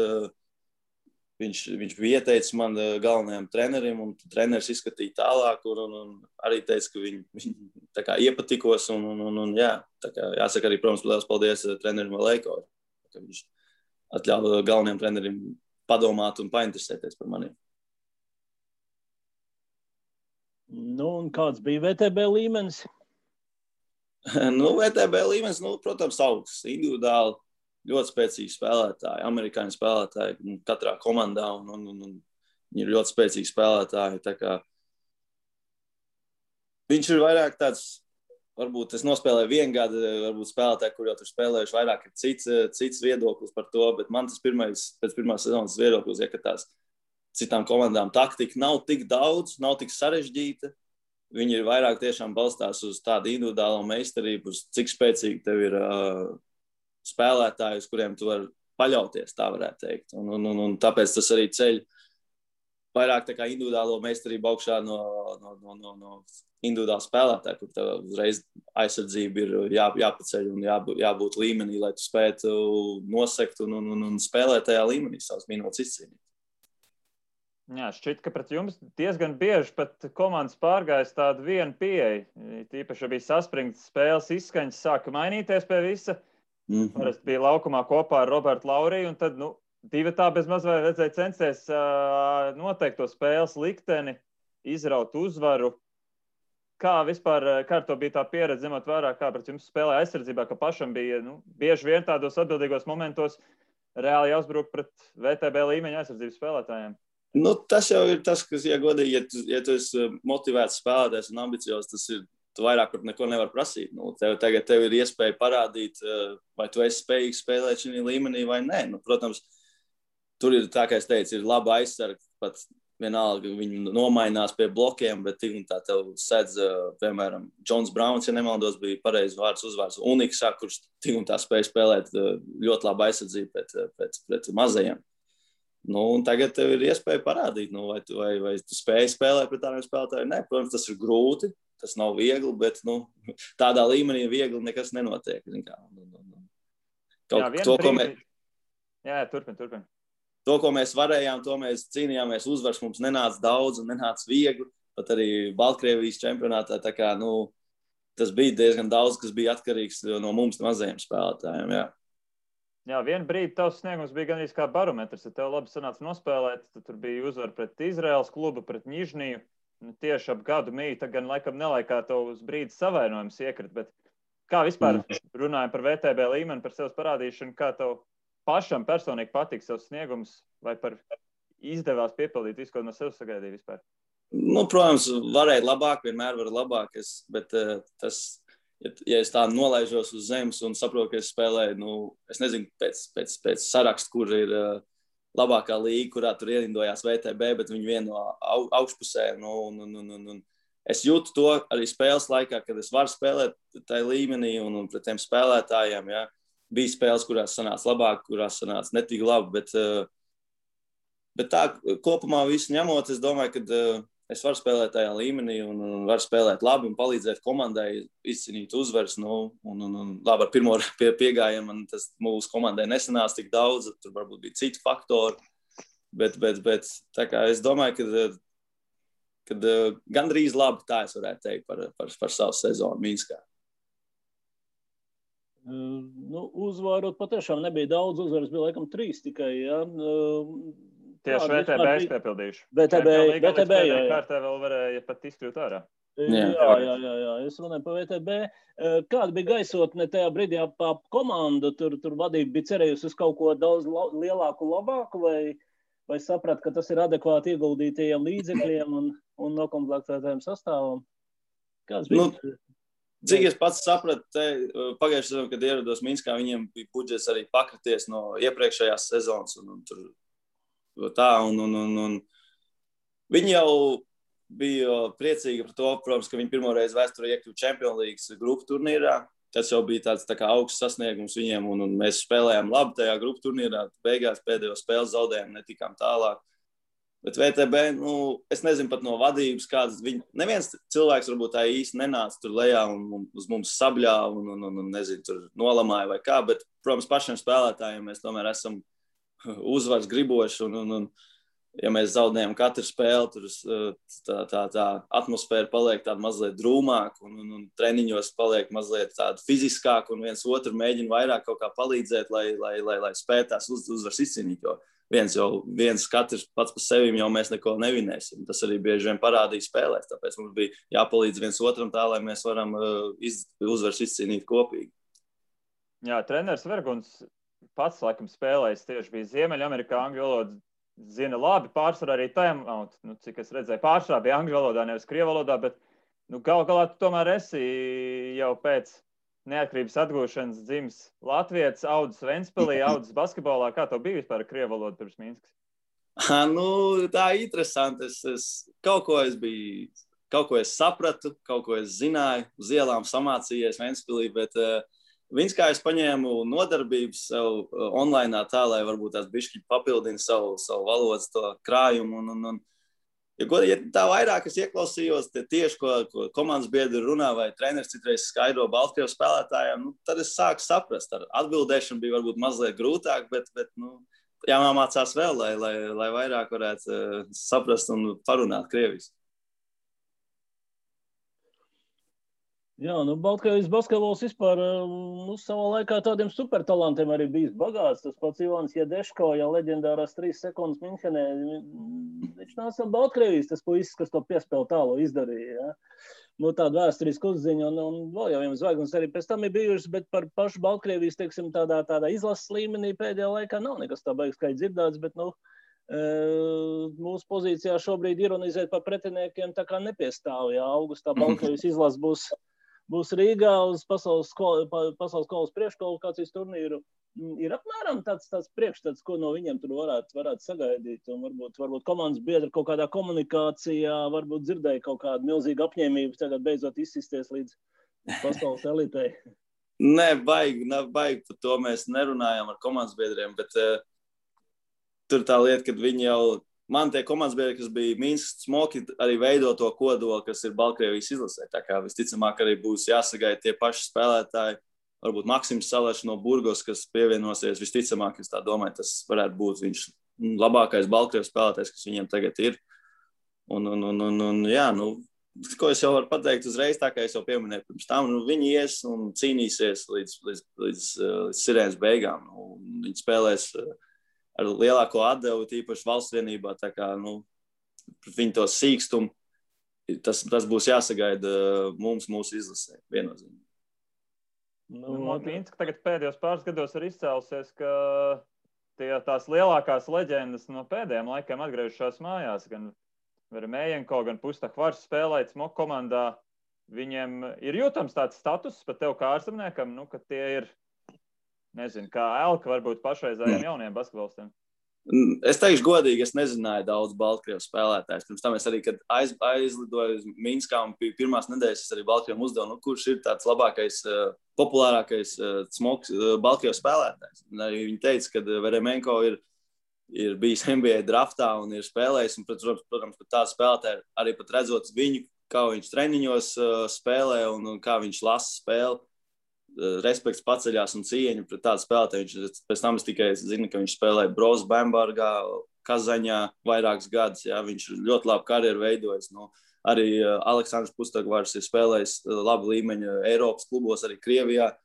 viņš bija ieteicis man galvenajam trenerim, un treneris izskatīja tālāk, un arī teica, ka viņi tā kā iepatikos, un jā, tā kā jāsaka arī, protams, liels paldies trenerim Valēko, ka viņš atļāva galvenajam trenerim padomāt un painteresēties par maniem. Un kāds bija VTB līmenis? VTB līmenis, protams, augsts, individuāli. Ļoti spēcīgi spēlētāji, amerikāņu spēlētāji katrā komandā, un viņi ir ļoti spēcīgi spēlētāji. Tā kā viņš ir vairāk tāds, varbūt es nospēlēju vienu gadu, varbūt spēlētāji, kur jau tur spēlējuši vairāk, ir cits viedoklis par to, bet man tas pēc pirmās sezonas viedoklis, ka tās citām komandām taktika nav tik daudz, nav tik sarežģīta. Viņi ir vairāk tiešām balstās uz tādu individuālo meistarību, uz cik spēcīgi tev ir spēlētāji, uz kuriem tu vari paļauties, tā varētu teikt. Un tāpēc tas arī ceļ vairāk tā kā individuālo meistarību augšā no individuāla spēlētāja, kur tev uzreiz aizsardzība ir jāpaceļ un jābūt līmenī, lai tu spētu nosekt un spēlēt tajā līmenī savas minūtes izcīnīt. Jā, šķiet, ka pret jums diezgan bieži pat komandas pārgājas tādu vienu pieeju. Tīpaši bija saspringts spēles izskaņas, sāka mainīties pie visa. Parasti bija laukumā kopā ar Robertu Lauriju, un tad, divatā bez maz vai redzēja censties noteikt to spēles likteni, izraut uzvaru. Kā vispār, kā to bija tā pieredze, ņemot vērā, kā pret jums spēlēja aizsardzībā, ka pašam bija, bieži vien tādos atbildīgos momentos reāli jāuzbruk pret VTB līmeņa aizsardzības spēlētājiem? Tas jau ir tas, kas, ja godīgi, ja tu esi motivēts spēlētājs un ambiciozs, tas ir, tu vairāk par neko nevar prasīt. Tagad tev ir iespēja parādīt, vai tu esi spējīgs spēlēt šī līmenī vai nē. Protams, tur ir tā, kā es teicu, ir laba aizsarga, pat vienalga viņi nomainās pie blokiem, bet tik un tā tev sedz, piemēram, Džons Brauns, ja nemaldos, bija pareizi uzvārds Uniksā, kurš tik un tā spēja spēlēt ļoti labu aizsardzību pret mazajiem. Un tagad tev ir iespēja parādīt, vai tu spēj spēlēt pret tādiem spēlētājiem. Nē, protams, tas ir grūti, tas nav viegli, bet tādā līmenī viegli nekas nenotiek. Turpin. To, ko mēs varējām, to mēs cīnījāmies, uzvars mums nenāca daudz un nenāca viegli, pat arī Baltkrievijas čempionātā, tā kā, tas bija diezgan daudz, kas bija atkarīgs no mums mazajiem spēlētājiem, jā. Jā, vienu brīdi tavs sniegums bija gandrīz kā barometrs, ja tev labi sanāca nospēlēt, tad tur bija uzvara pret Izraēlas klubu, pret Ņižniju, tieši ap gadu mīta, gan laikam nelaikā tev uz brīdi savainojums iekrit, bet kā vispār runājam par VTB līmeni, par sevs parādīšanu, kā tev pašam personīgi patīk savs sniegums, vai par izdevās piepildīt visu, ko no sev sagaidīja vispār? Protams, varēja labāk, vienmēr var labāk, bet tas... Ja es tā nolaižos uz zemes un saprotu, ka es spēlēju, es nezinu pēc sarakstu, kur ir labākā līga, kurā tur ierindojās VTB, bet viņi vienu no augšpusē, un es jūtu to arī spēles laikā, kad es varu spēlēt tajā līmenī un pret tiem spēlētājiem. Ja. Bija spēles, kurās sanāca labāk, kurās sanāca netik labi, bet tā kopumā visu ņemot, es domāju, ka es varu spēlēt tajā līmenī un varu spēlēt labi un palīdzēt komandai izcīnīt uzvaras. Un labi, ar pirmo piegājienu man tas mūsu komandai nesanāca tik daudz, tur varbūt bija citi faktori, bet tā kā es domāju, kad gandrīz labi tā es varētu teikt par savu sezonu Minskā. Uzvarot patiešām nebija daudz, uzvaras bija laikam 3 tikai, ja. Tieši VTB es piepildījuši. VTB, jā. Kārtē vēl varēja pat izkļūt ārā. Jā, es runāju par VTB. Kāda bija gaisotne tajā brīdī ap komandu? Tur vadība bija cerējusi uz kaut ko daudz lielāku, labāku, vai saprat, ka tas ir adekvāti ieguldītajiem līdzekļiem un nokomplektētajiem sastāvam? Kāds bija? Cik es pats sapratu, pagājušajā sezonā, kad ierados Minskā, viņiem bija budžets arī pakrities no iepriekšējās sezonas un tur tā, un viņi jau bija priecīgi par to, protams, ka viņi pirmoreiz vēsturē iekļuva Champions League grupu turnīrā. Tas jau bija tāds tā kā augsts sasniegums viņiem, un mēs spēlējām labi tajā grupu turnīrā. Beigās pēdējo spēli zaudējām, netikām tālāk. Bet VTB, es nezinu pat no vadības, kādas neviens cilvēks varbūt tā īsti nenāca tur lejā un uz mums sabļāva un nezinu, tur nolamāja vai kā, bet, protams, pašiem spēlētājiem mēs tomēr esam uzvars griboši un ja mēs zaudējam katru spēli, tur tā atmosfēra paliek tāda mazliet drūmāka un treniņos paliek mazliet tāda fiziskāka un viens otru mēģina vairāk kaut kā palīdzēt, lai spētu tās uzvaras izcīnīt, jo viens katrs pats par sevi jau mēs neko nevinēsim. Tas arī bieži vien parādīja spēlēs, tāpēc mums bija jāpalīdz viens otram tā, lai mēs varam uzvaras izcīnīt kopīgi. Jā, treneris Verguns pats, laikam, spēlējis tieši bija Ziemeļamerikā, angļu valodu zina labi, pārsvarā arī timeout, cik es redzēju, pārsvarā bija angļu valodā, nevis krievu valodā, bet gal galā tu tomēr esi jau pēc neatkarības atgūšanas dzimis latvietis, audzis Ventspilī, audzis basketbolā. Kā tev bija vispār krievu valoda pirms Minskas? Tā interesanti. Kaut ko es sapratu, kaut ko es zināju, uz ielām samācījies Ventspilī, bet Minskā es paņēmu nodarbības sev online tā, lai varbūt tās bišķi papildina savu valodas to krājumu. Ja tā vairāk es ieklausījos tieši, ko komandas biedri runā vai treneris citreiz skaidro Baltkrievu spēlētājiem, tad es sāku saprast. Ar atbildēšanu bija varbūt mazliet grūtāk, bet jāmācās vēl, lai vairāk varētu saprast un parunāt krieviski. Jā, Baltkrievijas basketbols vispār savā laikā tādiem supertalantiem arī bijis bagāts. Tas pats Ivans Jedeško, ja leģendārās 3 sekundes Minhenē, viņš nāca no Baltkrievijas, tas puisis, kas to piespēlu tālu izdarīja. Ja? Tāda vēsturisku uzziņa un vēl jau viens zvaigznes arī pēc tam ir bijušas, bet par pašu Baltkrievijas, teiksim, tādā izlases līmenī pēdējā laikā nav nekas tā beigas kā dzirdēts, bet, mūsu pozīcijā šobrīd ironizēt par pretiniekiem tā kā nepiestāv. Ja? Augustā Baltkrievijas izlases būs Rīgā uz pasaules kausa priekškvalifikācijas turnīru. Ir apmēram tāds priekšstats, ko no viņiem tur varētu sagaidīt. Un varbūt komandas biedri kaut kādā komunikācijā, varbūt dzirdēja kaut kādu milzīgu apņēmību tagad beidzot izsisties līdz pasaules elitei. Nē, baigi, par to mēs nerunājam ar komandas biedriem, bet tur tā lieta, kad viņi jau man tie komandas biedri, kas bija Minskas smoki, arī veido to kodolu, kas ir Baltkrievijas izlasē. Tā kā visticamāk arī būs jāsagaida tie paši spēlētāji. Varbūt Maksims Salešs no Burgos, kas pievienosies, visticamāk, es tā domāju, tas varētu būt viņš labākais Baltkrievijas spēlētājs, kas viņiem tagad ir. Jā, ko es jau varu pateikt uzreiz, tā kā es jau pieminēju pirms tam, viņi ies un cīnīsies līdz sirēnas beigām. Viņi spēlēs ar lielāko atdevu, tīpaši valsts vienībā, tā kā, viņi to sīkstumu, tas būs jāsagaida mūsu izlasē, viennozīmīgi. Minska tagad pēdējos pāris gados ir izcēlusies, ka tās lielākās leģendas no pēdējiem laikiem atgriežušās mājās, gan Vermējenko, gan Pustahvars spēlēt smoku komandā. Viņiem ir jūtams tāds status pat tev kā ārzemniekam, ka tie ir, nezinu, kā Elka varbūt pašreizējiem jauniem basketbolistiem. Es teikšu godīgi, es nezināju daudz Baltkrievu spēlētājus. Pirms tam es arī, kad aizlidoju uz Minskā un pirmās nedēļas, es arī Baltkrievam uzdevu, kurš ir tāds labākais, populārākais Baltkrievu spēlētājs. Un arī viņi teica, ka Veremenko ir bijis NBA draftā un ir spēlējis. Un, protams, ka tādu spēlētāju arī pat redzot viņu, kā viņš treniņos spēlē un kā viņš lasa spēli. Respekts paceļās un cieņa pret tādu spēlētāju. Pēc tam es tikai zinu, ka viņš spēlēja Brose Bambergā, Kazaņā vairākus gadus. Jā, viņš ļoti labu karjeru veidojis. Arī Aleksandrs Pustagvārs ir spēlējis labu līmeņu Eiropas klubos, arī Krievijā.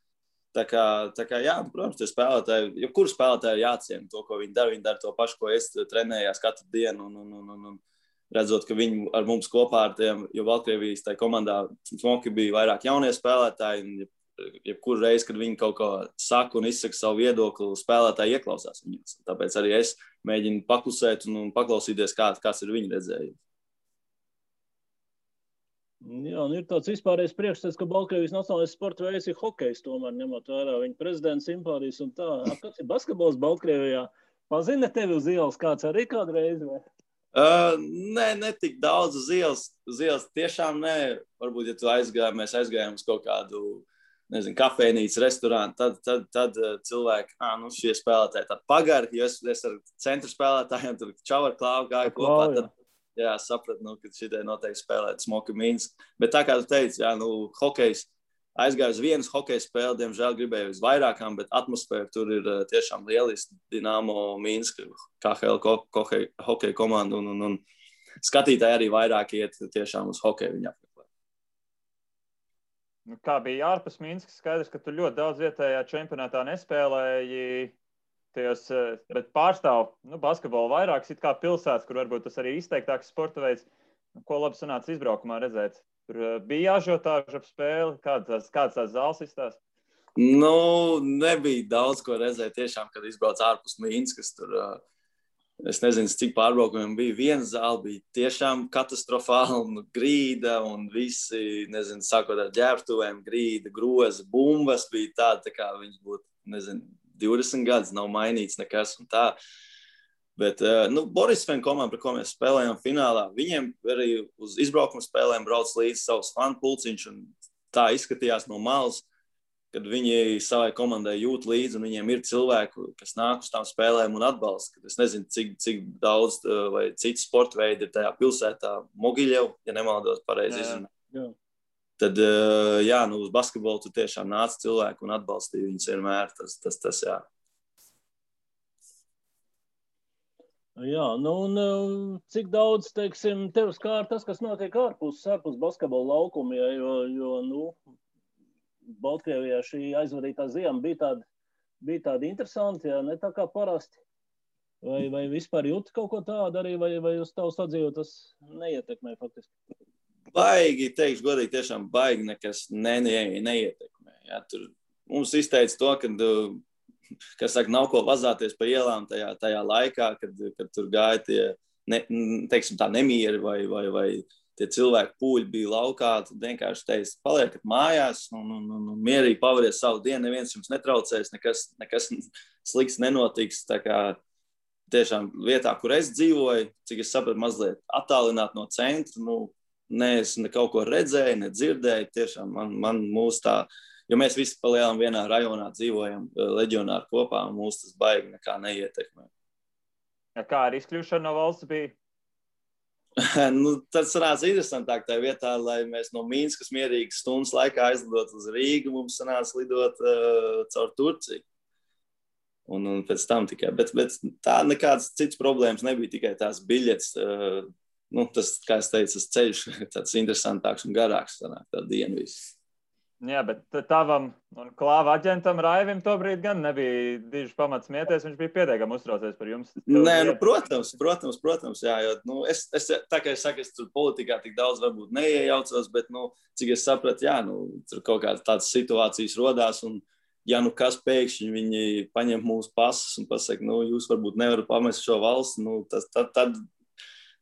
Tā kā jā, protams, tie spēlētāji, jebkuru spēlētāju jāciena to, ko viņi dara to pašu, ko es trenējās katru dienu. Un redzot, ka viņi ar mums kopā ar tiem, jo Baltkrievijas tajā komandā smoki bija vairāk jaunie spēlētāji. Jebkuru reizi, kad viņi kaut ko saka un izsaka savu viedokli, spēlētāji ieklausās viņus. Tāpēc arī es mēģinu paklusēt un paklausīties, kāds ir viņa redzējums. Jā, un ir tāds vispārējais priekšstats, ka Baltkrievijas nacionālais sporta veids ir hokejs, tomēr ņemot vērā viņa prezidenta simpātijas un tā. Kāds ir basketbols Baltkrievijā? Pazina tevi uz ielas kāds arī kādreiz? Vai? Nē, ne tik daudz uz ielas. Tiešām nē. Varbūt, ja mēs aizgājām uz kaut kādu kafejnīcu, restorānu, tad cilvēki, šie spēlētāji tādi pagari, jo es ar centru spēlētājiem tur čau ar klāvu gāju kopā, tad sapratu, ka šitai noteikti spēlēt Smoki Minsk. Bet tā kā tu teici, hokejs, aizgāju uz vienas hokeja spēli, diemžēl gribēju uz vairākām, bet atmosfēra tur ir tiešām lieliski. Dinamo Minsk, KHL hokeja komanda un skatītāji arī vairāk iet tiešām uz hokeju viņa apmeklēt. Kā bija ārpus Minskas? Skaidrs, ka tu ļoti daudz vietējā čempionātā nespēlēji, bet pārstāv basketbolu vairākas it kā pilsētas, kur varbūt tas arī izteiktāks sporta veids. Ko labi sanāca izbraukumā redzēt? Tur bija ažiotāža ap spēli? Kāds tās zāles izstās? Nebija daudz ko redzēt tiešām, kad izbrauc ārpus Minskas. Tur, es nezinu, cik pārbraukumiem bija. Viena zāle bija tiešām katastrofāla, grīda un visi, sākot ar ģērbtuvēm, grīda, groza, bumbas bija tāda, kā viņas būtu, 20 gadus nav mainīts nekas un tā. Bet, Borisfēna komanda, par ko mēs spēlējām finālā, viņiem arī uz izbraukuma spēlēm brauc līdz savus fanu pulciņš un tā izskatījās no malas, kad viņi savai komandai jūt līdzi un viņiem ir cilvēki, kas nāk uz tām spēlēm un atbalsta. Es nezinu, cik daudz vai citi sporta veidi ir tajā pilsētā Mogiļev, ja nemaldos pareizi izrunāt. Tad, uz basketbolu tu tiešām nāc cilvēku un atbalstīja viņus vienmēr. Tas jā. Jā, un cik daudz, teiksim, tev skār tas, kas notiek ārpus basketbola laukuma, jo Baltkrievijā šī aizvadītā ziema bija tāda interesanta, ja ne tā kā parasti. Vai vispār jūti kaut ko tādu arī, vai uz tavu sadzīvot tas neietekmē faktiski? Baigi, teikšu godīgi, tiešām baigi nekas neietekmē. Jā, tur mums izteica to, ka nav ko vazāties pa ielām tajā laikā, kad tur gāja tie, nemieri vai tie cilvēki pūļi bija laukā, tad vienkārši teica, paliekat mājās un mierīgi pavariet savu dienu, neviens jums netraucēs, nekas slikts nenotiks. Tā kā tiešām vietā, kur es dzīvoju, cik es sapratu, mazliet attālināt no centra, es kaut ko redzēju, nedzirdēju, tiešām man mūs tā, jo mēs visi palielam vienā rajonā dzīvojam, leģionāri kopā, un mūs tas baigi nekā neietekmē. Ja kā ar izkļūšanu no valsts bija? Tad sanāca interesantāk tajā vietā, lai mēs no Minskas mierīgi stundas laikā aizlidot uz Rīgu, mums sanāca lidot caur Turciju. Un pēc tam tikai. Bet tā nekādas citas problēmas nebija, tikai tās biļetes. Tas, kā es teicu, tas ceļš tāds interesantāks un garāks sanāk tā diena viss. Jā, bet tavam un klāva aģentam Raivim tobrīd gan nebija diži pamats smieties, viņš bija pietiekami uztraucies par jums. Nē, protams, jā, jo, tā kā es saku, es tur politikā tik daudz varbūt neiejaucos, bet, cik es sapratu, jā, tur kaut kādas tādas situācijas rodās, un ja kas pēkšņi viņi paņem mūsu pasus un pasaka, jūs varbūt nevarat pamest šo valsts,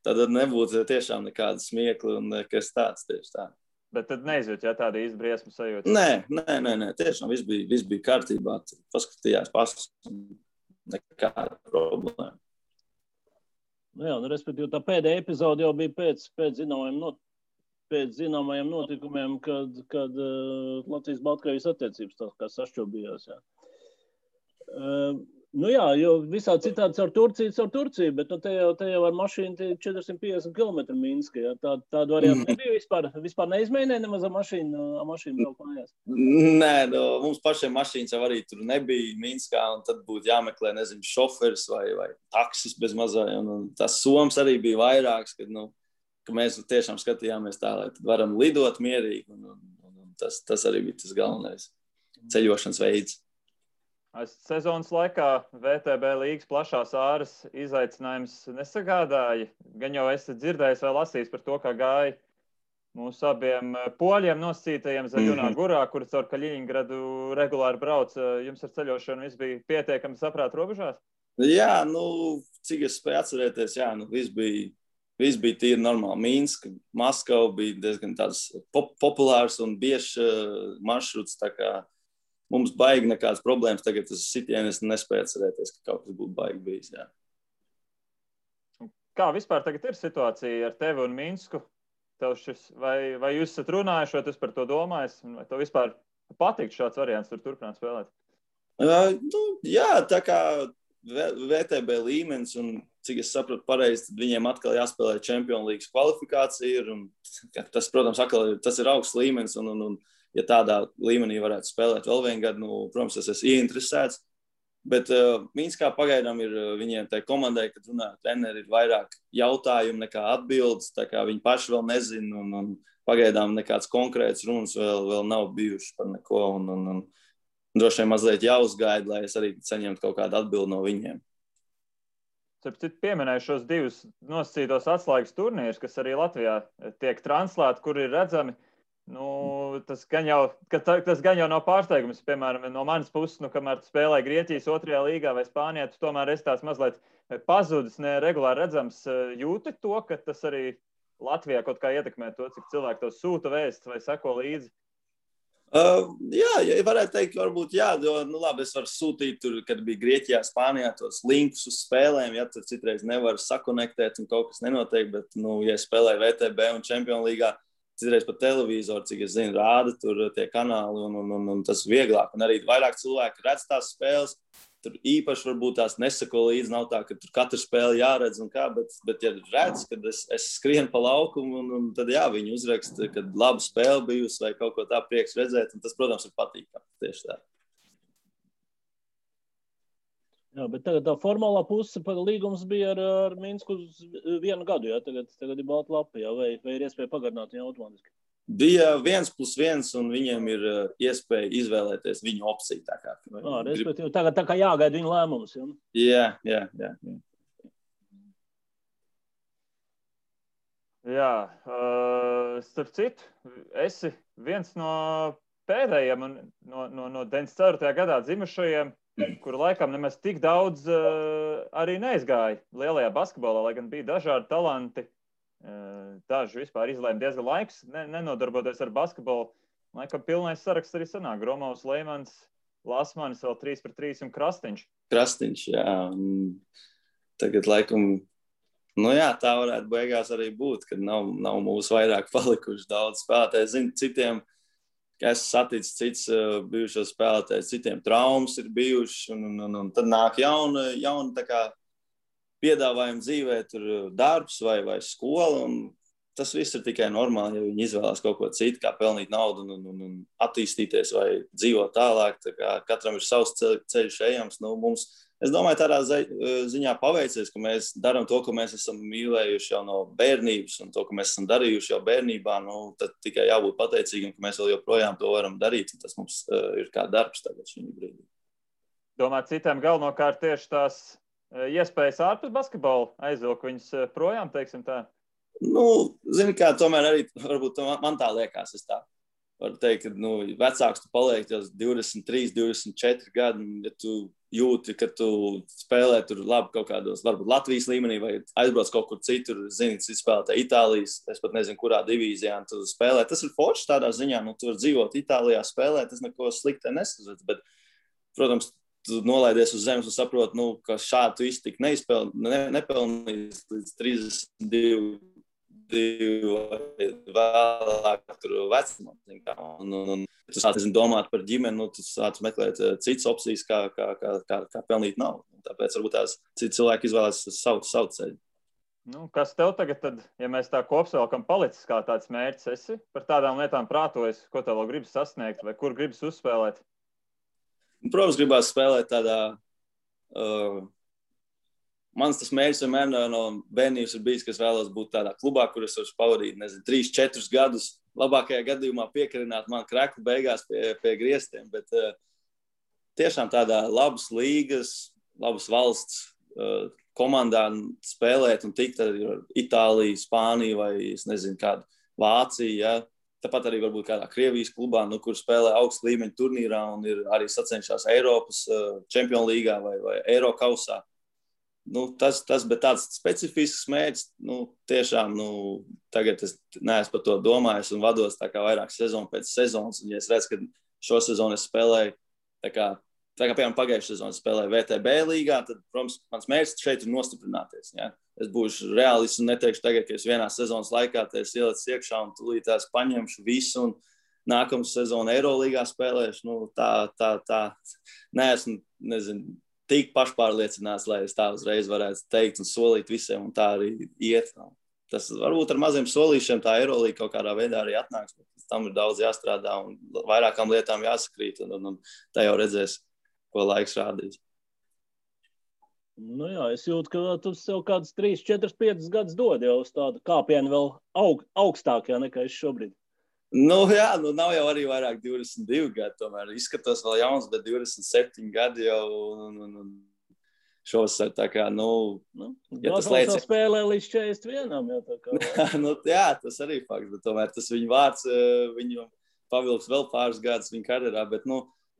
tad nebūtu tiešām nekāda smiekla un kas tāds tieši tā. Bet tad neizjūt, ja tāda izbriesmu sajūta? Nē, tiešām viss bija kārtībā. Paskatījās pasus, nekāda problēma. Jā, respektīvi, tā pēdējā epizode jau bija pēc zināmajiem notikumiem, kad Latvijas-Baltkrievijas attiecības tā kā sašķobījās. Jā. Jā, jo visā citādi caur Turciju, bet te jau ar mašīnu 450 km Minska. Jā. Tādu variantu nebija vispār neizmēģināja nemaz ar mašīnu braukt mājās. Nē, mums pašiem mašīnas jau arī tur nebija Minskā, un tad būtu jāmeklē, šoferis vai taksis bez mazā. Un tas soms arī bija vairāks, ka mēs tiešām skatījāmies tā, lai tad varam lidot mierīgi, un tas arī bija tas galvenais ceļošanas veids. Sezonas laikā VTB līgas plašās āras izaicinājums nesagādāja. Gan jau esat dzirdējis vai lasījis par to, kā gāja mūsu abiem poļiem nosacītajiem Zaļunā Gurā, kuri caur Kaļiņgradu regulāri brauc. Jums ar ceļošanu viss bija pietiekami saprāt robežās? Jā, cik es spēju atcerēties, viss bija tīri normāli. Minska, Maskava bija diezgan tāds populārs un biežs maršruts, tā kā mums baigi nekādas problēmas. Tagad tas sitienis nespēja atcerēties, ka kaut kas būtu baigi bijis. Jā. Kā vispār tagad ir situācija ar tevi un Minsku? Vai jūs esat runājuši, vai tu par to domājis? Vai tev vispār patīk šāds variants tur turpināt spēlēt? Jā, tā kā VTB līmenis, un cik es sapratu pareizi, tad viņiem atkal jāspēlē Champions League kvalifikācija. Tas, protams, tas ir augsts līmenis, un ja tādā līmenī varētu spēlēt vēl vienu gadu, protams, es esmu ieinteresēts. Bet Minskā pagaidām ir viņiem tai komandai, kad runāja treneri, ir vairāk jautājumu nekā atbildes, tā kā viņi paši vēl nezina, un pagaidām nekāds konkrēts runas vēl nav bijuši par neko, un droši vien mazliet jāuzgaida, lai es arī saņemtu kaut kādu atbildi no viņiem. Pieminēju šos divus nosacītos atslēgas turnīrus, kas arī Latvijā tiek translēti, kur ir redzami. Tas gan jau nav pārsteigums, piemēram, no manas puses, kamēr tu spēlēji Grieķijas 2. līgā vai Spānijā, tu tomēr esi tās mazliet pazudis, ne regulāri redzams. Jūti to, ka tas arī Latvijā kaut kā ietekmē to, cik cilvēki to sūta vēsts vai seko līdzi? Jā, varētu teikt, varbūt jā, jo, labi, es varu sūtīt tur, kad bija Grieķijā, Spānijā tos linkus uz spēlēm, ja tur citreiz nevar sakonektēt un kaut kas nenotiek, bet, ja spēlēju VTB un Champions Līgā, citreiz pa televizoru, cik es zinu, rāda tur tie kanāli, un tas vieglāk. Un arī vairāk cilvēki redz tās spēles, tur īpaši varbūt tās nesako līdzi, nav tā, ka tur katru spēli jāredz un kā, bet ja redz, kad es skrienu pa laukumu, un tad jā, viņi uzraksta, kad laba spēle bijusi vai kaut ko tā prieks redzēt, un tas, protams, ir patīkami tieši tā. Jā, bet tagad tā formālā puse līgums bija ar Minsku uz 1 gadu, jā, tagad ir balta lapa, jā, vai ir iespēja pagarināt viņu automātiski? Bija 1+1, un viņiem ir iespēja izvēlēties viņu opciju. Tā kā. Respektīvi, tagad tā kā jāgaida viņu lēmums, jā? Jā. Jā, starp citu, esi viens no pēdējiem un no 94. gadā dzimušajiem, kuru laikam nemaz tik daudz arī neizgāja lielajā basketbolā, lai gan bija dažādi talanti. Daži vispār izlēma diezgan laiks, nenodarboties ar basketbolu. Laikam pilnais saraksts arī sanāk. Gromovs, Leimans, Lasmanis, vēl 3-3 un Krastiņš. Krastiņš, jā. Tagad laikam, jā, tā varētu beigās arī būt, kad nav mūsu vairāk palikuši daudz spēlētāji. Zinu, citiem, ka esmu saticis cits bijušos spēlētājs, citiem traumas ir bijuši, un tad nāk jauna tā kā piedāvājumi dzīvē, tur darbs vai skola, un tas viss ir tikai normāli, ja viņi izvēlās kaut ko citu, kā pelnīt naudu un attīstīties vai dzīvot tālāk. Tā kā katram ir savs ceļš ejams. Es domāju, tādā ziņā paveicies, ka mēs darām to, ko mēs esam mīlējuši jau no bērnības, un to, ko mēs esam darījuši jau bērnībā, tad tikai jābūt pateicīgam, ka mēs vēl joprojām to varam darīt, un tas mums ir kā darbs tagad šī brīdī. Domāju, citiem galvenokārt tieši tās iespējas ārpus basketbola aizvilk viņus projām, teiksim tā? Zini kā, tomēr arī varbūt man tā liekas, es tā varu teikt, ka vecāks tu paliek jau 23, 24 gadi, ja tu jūti, ka tu spēlē tur labi kaut kādos, varbūt Latvijas līmenī vai aizbrauc kaut kur citur, zini, cits spēlētā Itālijas, es pat nezinu, kurā divīzijā tu spēlē. Tas ir forši tādā ziņā, tu var dzīvot Itālijā spēlēt, tas neko slikti nesazvēc, bet, protams, tu nolaidies uz zemes un saproti, ka šādu tu iztikt nepelnīs līdz 32 vēlāk tur vecumam. Un tu sāc domāt par ģimeni, tu sāc meklēt citas opcijas, kā pelnīt naudu. Tāpēc varbūt tās citi cilvēki izvēlās savu ceļu. Kas tev tagad, tad, ja mēs tā kopsavilkam, palicis kā tāds mērķis? Esi par tādām lietām prātojas, ko tev vēl gribas sasniegt vai kur gribas uzspēlēt? Protams, gribās spēlēt tādā... Mans tas mērķis vienmēr no bērnības ir bijis, ka es vēlos būt tādā klubā, kur es varu pavadīt, 3-4 gadus. Labākajā gadījumā piekarināt man kreklu beigās pie griestiem, bet tiešām tādā labas līgas, labas valsts komandā spēlēt un tikt ar Itāliju, Spāniju vai, es nezinu, kādu Vāciju, ja. Tāpat arī varbūt kādā Krievijas klubā, kur spēlē augstu līmeņu turnīrā un ir arī sacenšās Eiropas Čempionu līgā vai Eiro kausā. Bet tāds specifisks mērķis, tiešām, tagad es neesmu par to domājis un vados tā kā vairāk sezonu pēc sezonas. Un ja es redzu, ka šo sezonu es spēlēju, tā kā piemēram pagājušajā sezonā spēlēju VTB līgā, tad, protams, mans mērķis šeit ir nostiprināties. Ja? Es būšu reālists un neteikšu tagad, ka es vienā sezonas laikā es ielicu iekšā un tūlīt tās paņemšu visu un nākamā sezona Eirolīgā spēlēšu. Tā neesmu, tik pašpārliecināts, lai es tā uzreiz varētu teikt un solīt visiem, un tā arī iet. Tas varbūt ar maziem solīšiem tā Eirolīga kaut kādā veidā arī atnāks, bet tam ir daudz jāstrādā un vairākām lietām jāsakrīt, un tā jau redzēs, ko laiks rādīs. Jā, es jūtu, ka tu sev kāds 3, 4, 5 gadus dod jau uz tādu kāpienu vēl augstākajā nekā es šobrīd. Jā, nav jau arī vairāk 22 gadi, tomēr izskatos vēl jauns, bet 27 gadi jau šovasar tā kā, ja tas liecina. Spēlē līdz 41, jā, tā kā. Jā, tas arī fakts, bet tomēr tas viņa vārds, viņu pavilks vēl pāris gadus viņa karjerā, bet,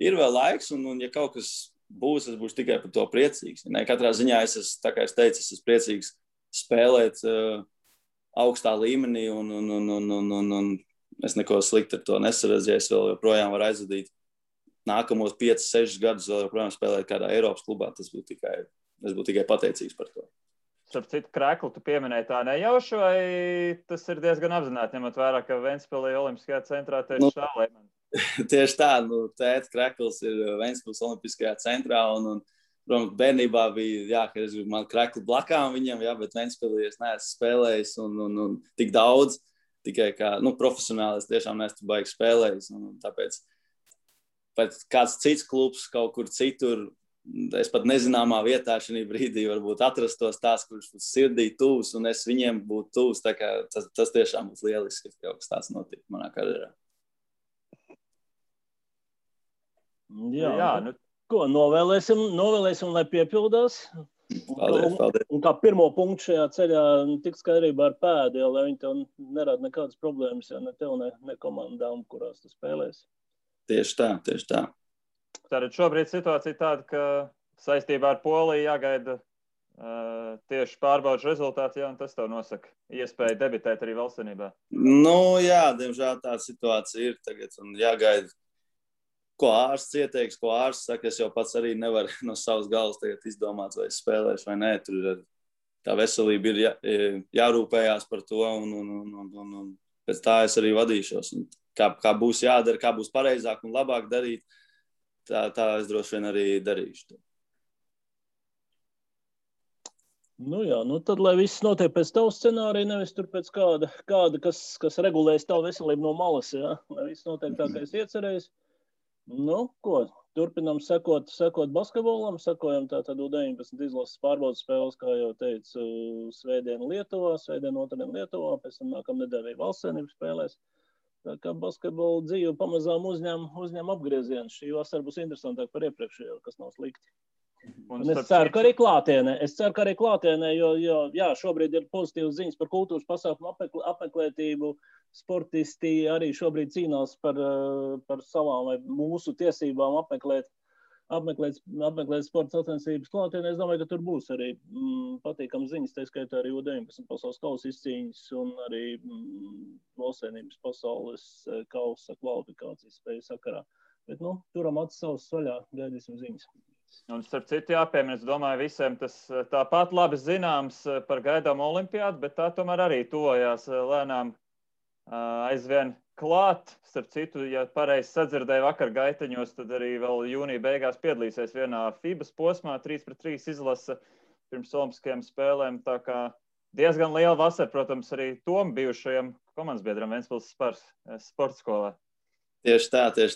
ir vēl laiks, un ja kaut kas būs, es būšu tikai par to priecīgs. Katrā ziņā tā kā es teicu, es esmu priecīgs spēlēt augstā līmenī, un es neko slikti ar to nesaredzu, ja es vēl joprojām varu aizvadīt nākamos 5, 6 gadus vēl joprojām spēlēt kādā Eiropas klubā. Es būtu tikai pateicīgs par to. Starp citu, kreklu tu pieminēji tā nejauši, vai tas ir diezgan apzināti, ņemot vērā, ka Ventspilī Olimpiskajā centrā tieši šā līmenī? Tieši tā, tēta krekls ir Ventspils Olimpiskajā centrā, un protams, bērnībā bija, ka es gribu man kreklu blakām viņam, bet Ventspilī es neesmu spēlējis un tik daudz, tikai kā, profesionāli es tiešām neesmu baigi spēlējis, un tāpēc kāds cits klubs kaut kur citur, es pat nezināmā vietā šajā brīdī varbūt atrastos tās, kurš būs sirdī tuvs, un es viņiem būtu tuvs, tā kā tas tiešām būs lieliski, ka kaut kas tāds notika manā karjerā. Jā, ko novēlēsim, lai piepildās. Paldies. Un kā pirmo punktu šajā ceļā tik skaidrībā ar pēdu, lai viņi tev nerada nekādas problēmas, ne tev, ne komandām, kurās tu spēlēsi. Tieši tā. Tātad šobrīd situācija tāda, ka saistībā ar Poliju jāgaida tieši pārbaudas rezultāti, un tas tev nosaka iespēju debitēt arī valstsvienībā. Jā, diemžēl tāda situācija ir tagad, un jāgaida, ko ārsts ieteiks, ko ārsts saka. Es jau pats arī nevaru no savas galvas tagad izdomāt, vai es spēlēšu vai nē. Tur tā veselība ir jārūpējās par to, un pēc tā es arī vadīšos. Un kā būs jādara, kā būs pareizāk un labāk darīt, tā es droši vien arī darīšu. Tad, lai viss notiek pēc tavu scenāriju, nevis tur pēc kāda kas regulēs tavu veselību no malas, jā? Lai viss notiek tā, kā es iecerējis. Turpinām sekot basketbolam, sekojam tātad U19 izlases pārbaudas spēles, kā jau teicu, svētdien Lietuvā, otrdien Lietuvā, pēc tam nākamnedēļ arī valstsvienības spēlēs. Tā kā basketbola dzīve pamazām uzņem apgriezienu. Šī vasara būs interesantāk par iepriekšējo, kas nav slikti. Un es ceru, ka arī klātienē, jo šobrīd ir pozitīvas ziņas par kultūras pasākumu apmeklētību. Sportisti arī šobrīd cīnās par savām vai mūsu tiesībām apmeklēt sporta sacensības klātienē. Es domāju, ka tur būs arī patīkams ziņas, tā skaitā arī U19 pasaules kausa izcīņas un arī valstsvienības pasaules kausa kvalifikācijas spēju sakarā. Bet, turam acis savus vaļā, gaidīsim ziņas. Un, starp citu, jāpiemina, es domāju, visiem tas tāpat labi zināms par gaidām olimpiādu, bet tā tomēr arī tuvojās lēnām aizvien klāt. Starp citu, ja pareizi sadzirdēju vakar gaiteņos, tad arī vēl jūnija beigās piedalīsies vienā FIBAs posmā, 3-3 izlase pirms olimpiskajām spēlēm. Tā kā diezgan liela vasara, protams, arī tom bijušajam komandas biedram Ventspils sporta skolā. Tieši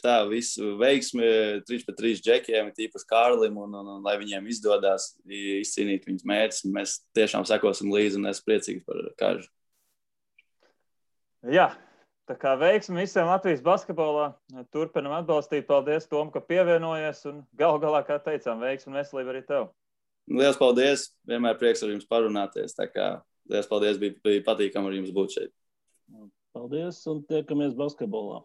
tā. Visu veiksmi 3-3 džekiem, tīpaši Kārlim, un lai viņiem izdodas izcīnīt viņas mērķus. Mēs tiešām sekosim līdzi un esmu priecīgs par Kāžu. Jā, tā kā veiksmi visiem Latvijas basketbolā. Turpinam atbalstīt. Paldies, Tom, ka pievienojies. Un galu galā, kā teicām, veiksmi un veselību arī tev. Liels paldies. Vienmēr prieks ar jums parunāties. Tā kā liels paldies. Bija patīkami ar jums būt šeit. Paldies un tiekamies basketbolā.